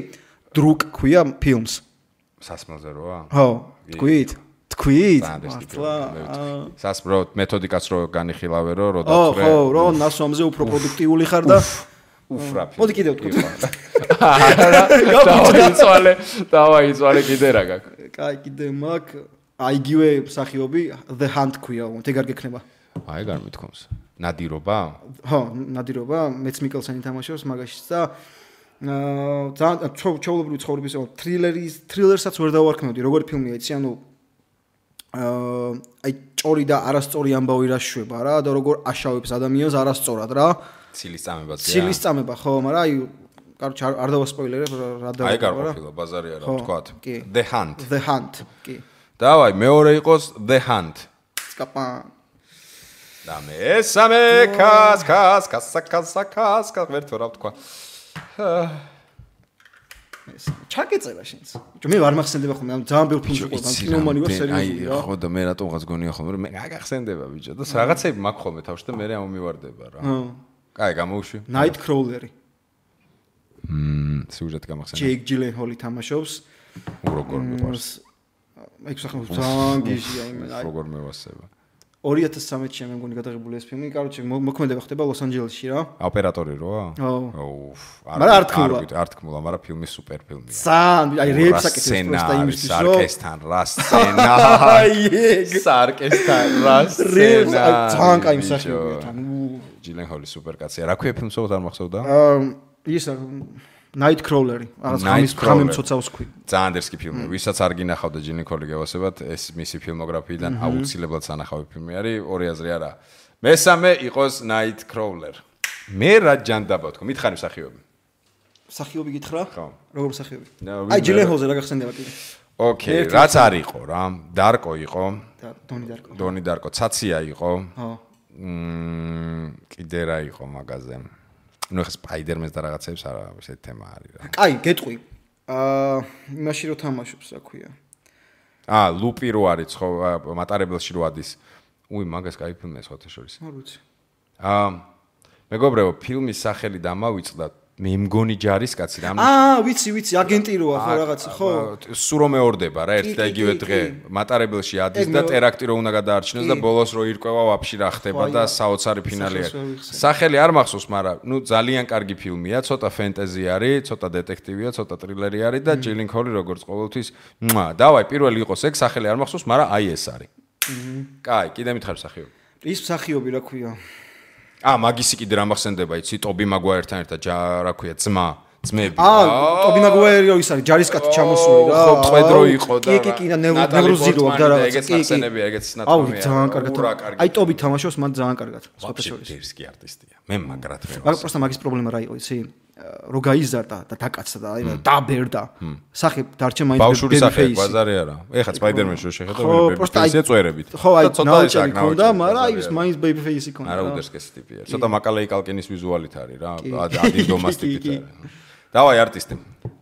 დრუკ ქვია ფილმს. სასმელზე როა? ხო, თქვით? სასპრო მეთოდიკაც რო განიხილავე რო დაწვრე. ხო, რო ნასვამზე უფრო პროდუქტიული ხარ და უფრაფი. მოდი კიდევ თქვი. დავაიცვალე კიდე რა გაქვს. კაი, კიდე მაგ აიგივე მსახიობი The Hunt ქვია, ეგ არ გექნება. აი გარ მithkoms. ნადირობა? ხო, ნადირობა, მეც მიკელსენი თამაშობს მაგაშიც და ძალიან ჩაულებრივი ცხოვრების თრილერსაც ვერ დავარქმევდი, როგორი ფილმია იცი, ანუ აი ჭორი და არასწორი ამბავი რა შვება რა და როგორ აშავებს ადამიანს არასწორად რა. ცილის წამებაც. ცილის წამება ხო, მაგრამ აი კაროჩ არ დავასპოილერებ რა და აი გარყოფილა ბაზარი არა თქვათ. The Hunt. The Hunt, კი. დავაი მეორე იყოს The Hunt. სკაპა. და მესამე კას ვერთო რა თქვა. ჩაკეწერა შენს. მე არ მახსენდება ხოლმე, ძალიან ბევრი ფილმი ყო, კინომანი ვარ სერიოზული რა. ხო და მე რატომღაც გონია ხოლმე, რომ მე გაგახსენდება ბიჭო და რაღაცები მაქვს ხოლმე თავში და მე ამომივარდება რა. კაი, გამოუშვი. Nightcrawler-ი. სიუჟეტი გამახსენდა. Jake Gyllenhaal-ი თამაშობს. როგორ მიყვარს. ეგ სახელმწიფო ძალიან გიჟია იმენ. როგორ მევასება. 2013-ში მე მგონი გადაღებული ეს ფილმი, კაროჩე მოქმედება ხდება ლოს-ანჯელესში რა. ოპერატორი როა? ხო. მაგრამ არ თქმულა, მაგრამ ფილმი სუპერ ფილმია. ძალიან, აი რეებს აკეთებს პროსტა იმისთვის, რომ სარკესთან რა სცენა. სარკესთან რა სცენა. ძალიან კაი მსახიობია თან. ჯილენჰოლი სუპერ კაცია. რა ქვია ფილმს უბრალოდ არ მახსოვდა? ის Nightcrawler-ი, რაღაც ხამი მცოცავს ქვი. ძალიან დერსკი ფილმი. ვისაც არ გინახავდა ჯილენჰოლი გევასებათ, ეს მისი ფილმოგრაფიიდან აუცილებლად სანახავი ფილმი არის, ორი აზრი არა. მესამე იყოს Nightcrawler. მე რა ჯანდაბა თქო, მითხარი მსახიობი. მსახიობი გითხრა? ხო. როგორ მსახიობი? აი ჯილენჰოლზე რა გახსენდება კიდე. ოკეი, რაც არ იყო რა, დარკო იყო. დონი დარკო, ცაცია იყო. ხო. კიდე რა იყო მაგაზე. ნუ ხა სპაიდერმენს და რაღაცებს არა, ესეთი თემა არის რა. კაი, გეტყვი. იმაში რო თამაშობს, რა ქვია. ლუპი რო არის ხო მატარებელში რო ადის. მაგას кай ფილმია სხვათა შორის. არ ვიცი. მეგობრებო, ფილმის სახელი დამავიწყდა მე მგონი ჯარისკაცი რა. ვიცი, აგენტი როა ხო რაღაცა, ხო? სულ რომ მეორდება რა ერთ და იგივე დღე მატარებელში ადის და ტერაქტი რო უნდა გადაარჩინოს და ბოლოს რო ირკვევა ვაფშე რა ხდება და საოცარი ფინალი არის. სახელი არ მახსოვს, მაგრამ ძალიან კარგი ფილმია, ცოტა ფენტეზი არის, ცოტა დეტექტივია, ცოტა ტრილერი არის და ჯილინქოლი როგორც ყოველთვის. დავაი, პირველი იყოს ეგ, სახელი არ მახსოვს, მაგრამ აი ეს არის. კაი, კიდე მითხარ მსახიობი. ის მსახიობი რა ქვია? მაგისი კიდე რა მახსენდება, იცი, ტობი მაგვაიერთან ერთად რა ქვია, ძმები. ტობი მაგვაიერი ის არის, ჯარისკაცი ჩამოსული რა. ხო, ტყვედრო იყო და კი, და ნევროზირო და რაღაცა. ეგეც ახსენებია, ეგეც ნათქვამია. ძალიან კარგად. აი ტობი თამაშობს, მან ძალიან კარგად. სპეციალისტი არტისტია. მე მაგრად მე. მაგრამ პროსტა მაგის პრობლემა რა იყო, იცი? რო გაიზარდა და დაკაცდა და აი დაბერდა. სახე დარჩა მაინც ბავშვური სახე, ბაზარი არა. ეხლა სპაიდერმენში რო შეხედა ბეიბიფეისია წვერებით. ხო, აი ნაუჭი ქონდა, მაგრამ აი ის მაინც ბეიბიფეისი ქონდა. არა უდერსკეს ტიპია. ცოტა მაკალეი კალკინის ვიზუალით არის რა. ადინდომას ტიპით არის. დავაი არტისტი.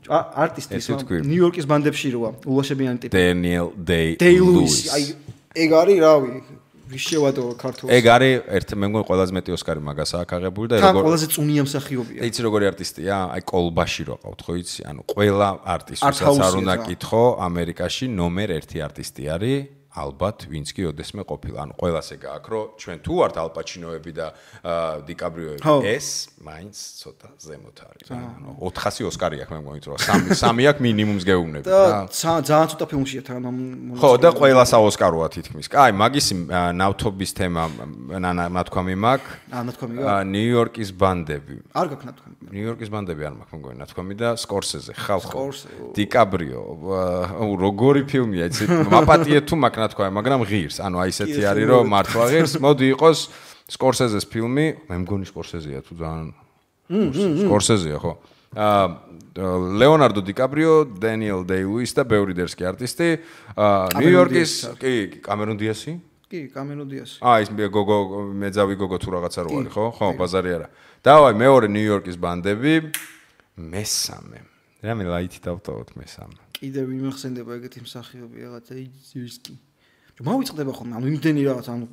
არტისტი ნიუ-იორკის ბანდებში როა, ულაშებიანი ტიპი. დენიელ დეი-ლუისი. აი ეგ არის რავი. ვიშევადო ქართულს. ეგ არის მე მგონი ყველაზე მეტი ოსკარი მაგას აქვს აღებული და როგორ ყველაზე წუნია მსახიობია. იცი როგორი არტისტია? აი კოლბაში რო ყავთ ხო იცი? ანუ ყველა არტისტს არ უნდა კითხო, ამერიკაში ნომერ 1 არტისტი არის. ალბათ ვინც კი ოდესმე ყოფილა. ანუ ყველას ეგ აქვს, რომ ჩვენ თუ ვართ ალპაჩინოები და დიკაბრიოები, ეს მაინც ცოტა ზემოთ არის რა. ანუ 400 ოსკარი აქვს მე მგონი, რომ 3 აქვს მინიმუმს გეუბნებით და რა. ძალიან ცოტა ფილმშია თან ხო, და ყველას აოსკაროა თითქმის. კაი, მაგისი ნავთობის თემა ნათქვამი მაქვს. ნათქვამი გაქვს. ნიუ-იორკის ბანდები. არ გაქვს ნათქვამი. ნიუ-იორკის ბანდები არ მაქვს მგონი ნათქვამი და სკორსეზე ხალხო. დიკაბრიო. როგორი ფილმია, იცი? მაპატიე თუ მაქვს თქვა, მაგრამ ღირს. ანუ აი ესეთი არის, რომ მართლა ღირს. მოდი იყოს სკორსეზეს ფილმი, მე მგონი სკორსეზია თუ ძალიან. სკორსეზია, ხო? ლეონარდო დიკაბრიო, დენიელ დეი-ლუისი და ბევრი დერსკი არტისტი. ნიუ-იორკის, კი, კამერონ დიასი? კი, კამერონ დიასი. ის გოგო, მეძავი გოგო თუ რაღაცა რო არის, ხო? ხო, ბაზარი არა. დავაი, მეორე ნიუ-იორკის ბანდები, მესამე. რამე ლაითი დავტოვოთ მესამე. კიდე ვიმახსენდება ეგეთი მსახიობი რაღაცა იზირსკი. მოვიწყდება ხოლმე, ანუ იმდენი რაღაც, ანუ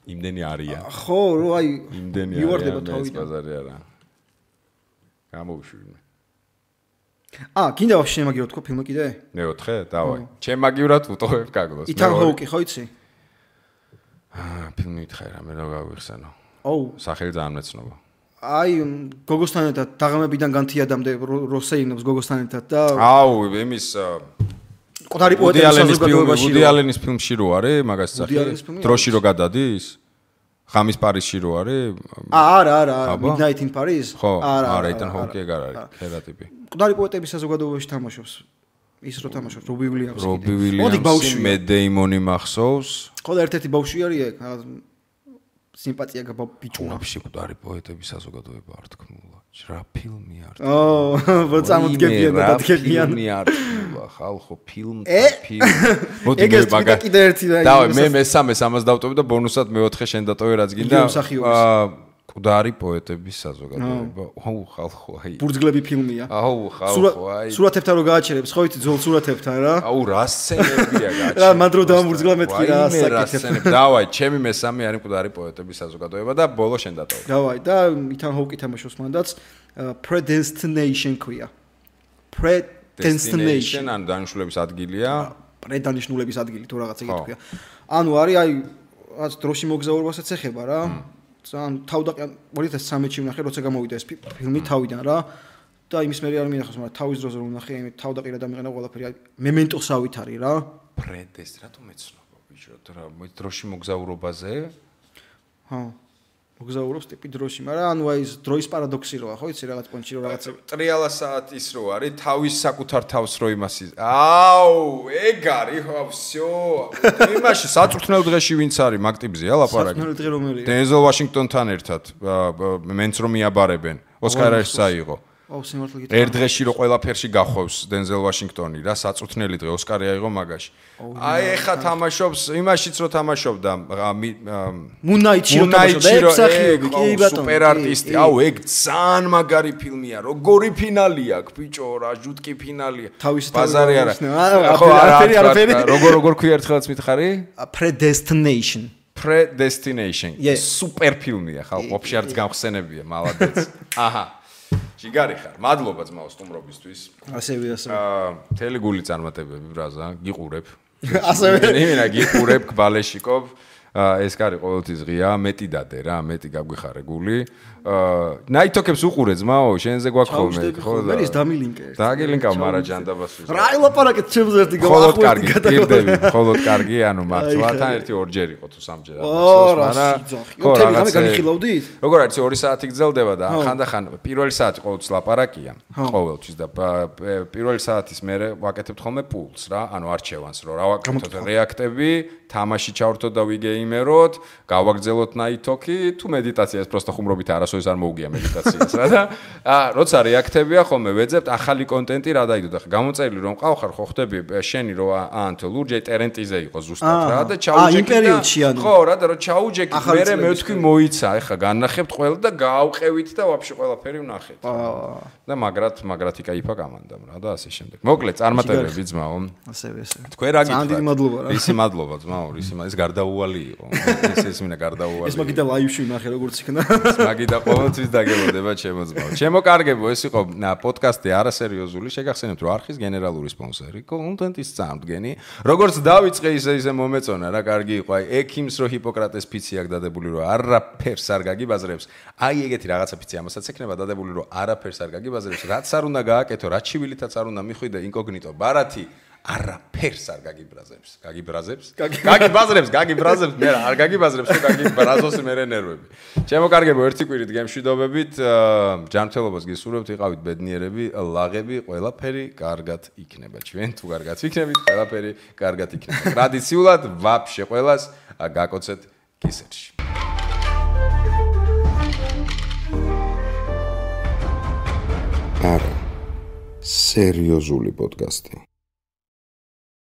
იმდენი არია. ხო, რო აი იმდენი მივარდება თავიდან. ბაზარი არა. გამოვიშვი. კიდე ვაფშე შემაგირო თქო ფილმი კიდე? მეოთხე, დავაი. ჩემაგივრად ვუტოვებ გაგლოს. ითან ჰოუკი ხო იცი? ფილმი ითხარ რამე რა გავიხსენო. სახელი ძალიან მეცნობა. აი გოგოსთან ერთად დაღამებიდან განთიადამდე როსეინობს გოგოსთან ერთად და იმის ყდარი პოეტების საზოგადოებაში ვუდი ალენის ფილმში რო არის მაგას სახელი დროში რო გადადის ღამის პარიზში რო არის არა Midnight in Paris არა იტან ჰოუკი ეგ არ არის ხერა ტიპი ყდარი პოეტების საზოგადოებაში თამაშობს ის რო თამაშობს რობი ვილიამსი რობი ვილიამსი მე დეიმონი მახსოვს ხო და ერთ-ერთი ბავშვი არის ეგ სიმპათია გაბიჭუნა ვაფშე ყდარი პოეტების საზოგადოება არ თქმულა რა ფილმი არ მოწამოდგებიან და დადგებიან ფილმი არ თქმულა ხალხო ფილმი მოდი მე მაგა კიდე ერთი დავე მე მესამეს ამას დავტოვე და ბონუსად მეოთხე შენ დატოვე რაც გინდა ყდარი პოეტების საზოგადოება ხალხო აი ბურძგლები ფილმია ხალხო აი სურათებთან რო გააჩერებს ხო იცი ძველ სურათებთან რა რა სცენებია გააჩერებს რა მანდრო დამბურძგლა მეთქი რა საკეთებ დავაი ჩემი მესამე არის ყდარი პოეტების საზოგადოება და ბოლო შენ დატოვე დავაი და ითან ჰოუკი თამაშობს მანდაც predestination ქვია predestination ან დანიშნულების ადგილია პრედანიშნულების ადგილი თუ რაღაცა ეგეთი ქვია ანუ არის აი რაც დროში მოგზაურობასაც ეხება რა ძალიან თავდაყიან 2013-ში ვნახე როცა გამოვიდა ეს ფილმი თავიდან რა და იმის მე არ მინახავს მაგრამ თავის დროზე რომ ვნახე იმით თავდაყირა დამიყენა ყველაფერი მემენტოსავით არის რა პრედეს რატომ ეცნობა ბიჭო რა დროში მოგზაურობაზე მოგზაურობს ტიპი დროში მაგრამ ანუ აი ეს დროის პარადოქსი როა ხო იცი რაღაც პონჩი რო რაღაც ტრიალა საათის რო არის თავის საკუთარ თავს რო იმასი ეგ არის ხო всё იმაში საწვრთნელ დღეში ვინც არის მაგ ტიპზეა ლაპარაკი საწვრთნელ დღე რომელია დენზელ ვაშინგტონთან ერთად მენც რომ მიაბარებენ ოსკარს საიღო სიმართლე გითხრა. ერთ დღეში რო ყველაფერში გახვევს დენზელ ვაშინგტონი რა, საწუთნელი დღე ოსკარი აიღო მაგაში. აი ეხა თამაშობს, იმაშიც რო თამაშობდა მუნაიჩი რო თამაშობდა, ეგ მსახიობი, კი ბატონო. სუპერ არტისტი. აუ, ეგ ძალიან მაგარი ფილმია. როგორი ფინალი აქვს, ბიჭო, რა ჟუტკი ფინალია. ბაზარი არა. ხო, არაფერი. როგორ ქვია ერთხელაც მითხარი? Predestination. Predestination. სუპერ ფილმია, ხალხო, ვაფშე არც გამხსენებია, მალადეც. აჰა. ჯიგარი ხარ. მადლობა ძმაო სტუმრობისთვის. ასევე. მთელი გული წარმატებები ბრაზა, გიყურებ. ასევე. იმენა გიყურებ ბალეშიკობ. ეს კარი ყოველთვის ღია, მეტი დადე რა, მეტი გაგვიხარე გული. ნაითოქებს უყურე ძმაო, შენზე გვაქვს ხოლმე, ხო და. მერის დამილინკე. დაგილინკა მარა ჯანდაბასვის. რა ილაპარაკეთ ჩემზე ერთი ხოლოდ კარგი, გირდები, ხოლოდ კარგი, ანუ მართლათან ერთი ორჯერ იყო თუ სამჯერ ამბობს, მაგრამ ხო რაღაცა განიხილავდით? როგორ არის 2 საათი გრძელდება და ხანდახან პირველი საათი ყოველთვის ლაპარაკია, ყოველთვის და პირველი საათის მერე ვაკეთებთ ხოლმე პულს რა, ანუ არჩევანს რო რა ვაკეთოთ რეაქტები, თამაში ჩავრთოთ და ვიგეიმეროთ, გავაგრძელოთ ნაითოქი, თუ მედიტაციას პროსტო ხუმრობით არასოდეს არ მოუგია მედიტაციას რა და როცა რეაქტებია ხოლმე ვეძებთ ახალი კონტენტი რა დაიდო და გამოწერილი რომ ყავხარ ხო ხდები შენი რო ანთო ლურჯი ტერენტიზე იყო ზუსტად რა და ჩაუჯექი ხო რა და რო ჩაუჯექი მერე მე ვთქვი მოიცა ეხა განნახებთ ყველა და გაავყევით და ვაფშე ყველაფერი ვნახეთ და მაგრად იკაიფა კამანდამ რა და ასე შემდეგ მოკლედ წარმატებები ძმაო ასევე თქვენ რა გითხრათ ძალიან მადლობა რა ისი მადლობა ძმაო ის გარდაუვალი იყო ეს მინდა გარდაუვალი ეს მაგიდა ლაივში ვნახე როგორც იქნა მაგიდა ყოველთვის დაგებოდება ჩემო ძმაო ჩემო კარგებო ეს იყო პოდკასტი არასერიოზული შეგახსენებთ რომ არხის გენერალური სპონსორი კონტენტის წამდგენი როგორც დავიწყე ისე მომეწონა რა კარგი იყო აი ექიმს რო ჰიპოკრატეს ფიცი აქვს დადებული რომ არაფერს არ გაგიბაზრებს აი ეგეთი რაღაცა ფიცი ამასაც ექნება დადებული რომ არაფერს არ გაგიბაზრებს რაც არ უნდა გააკეთო რაც ჩივილითაც არ უნდა მიხვიდე ინკოგნიტო ბარათი არაფერს არ გაგიბრაზებს მე არ გაგიბაზრებს თუ გაგიბრაზოს მე ნერვები ჩემო კარგებო ერთი კვირით გემშვიდობებით ჯანმრთელობას გისურვებთ იყავით ბედნიერები ლაღები ყველაფერი კარგად იქნება ჩვენ თუ კარგად ვიქნებით ყველაფერი კარგად იქნება ტრადიციულად ვაფშე ყველას გაკოცეთ კისერში არა სერიოზული პოდკასტი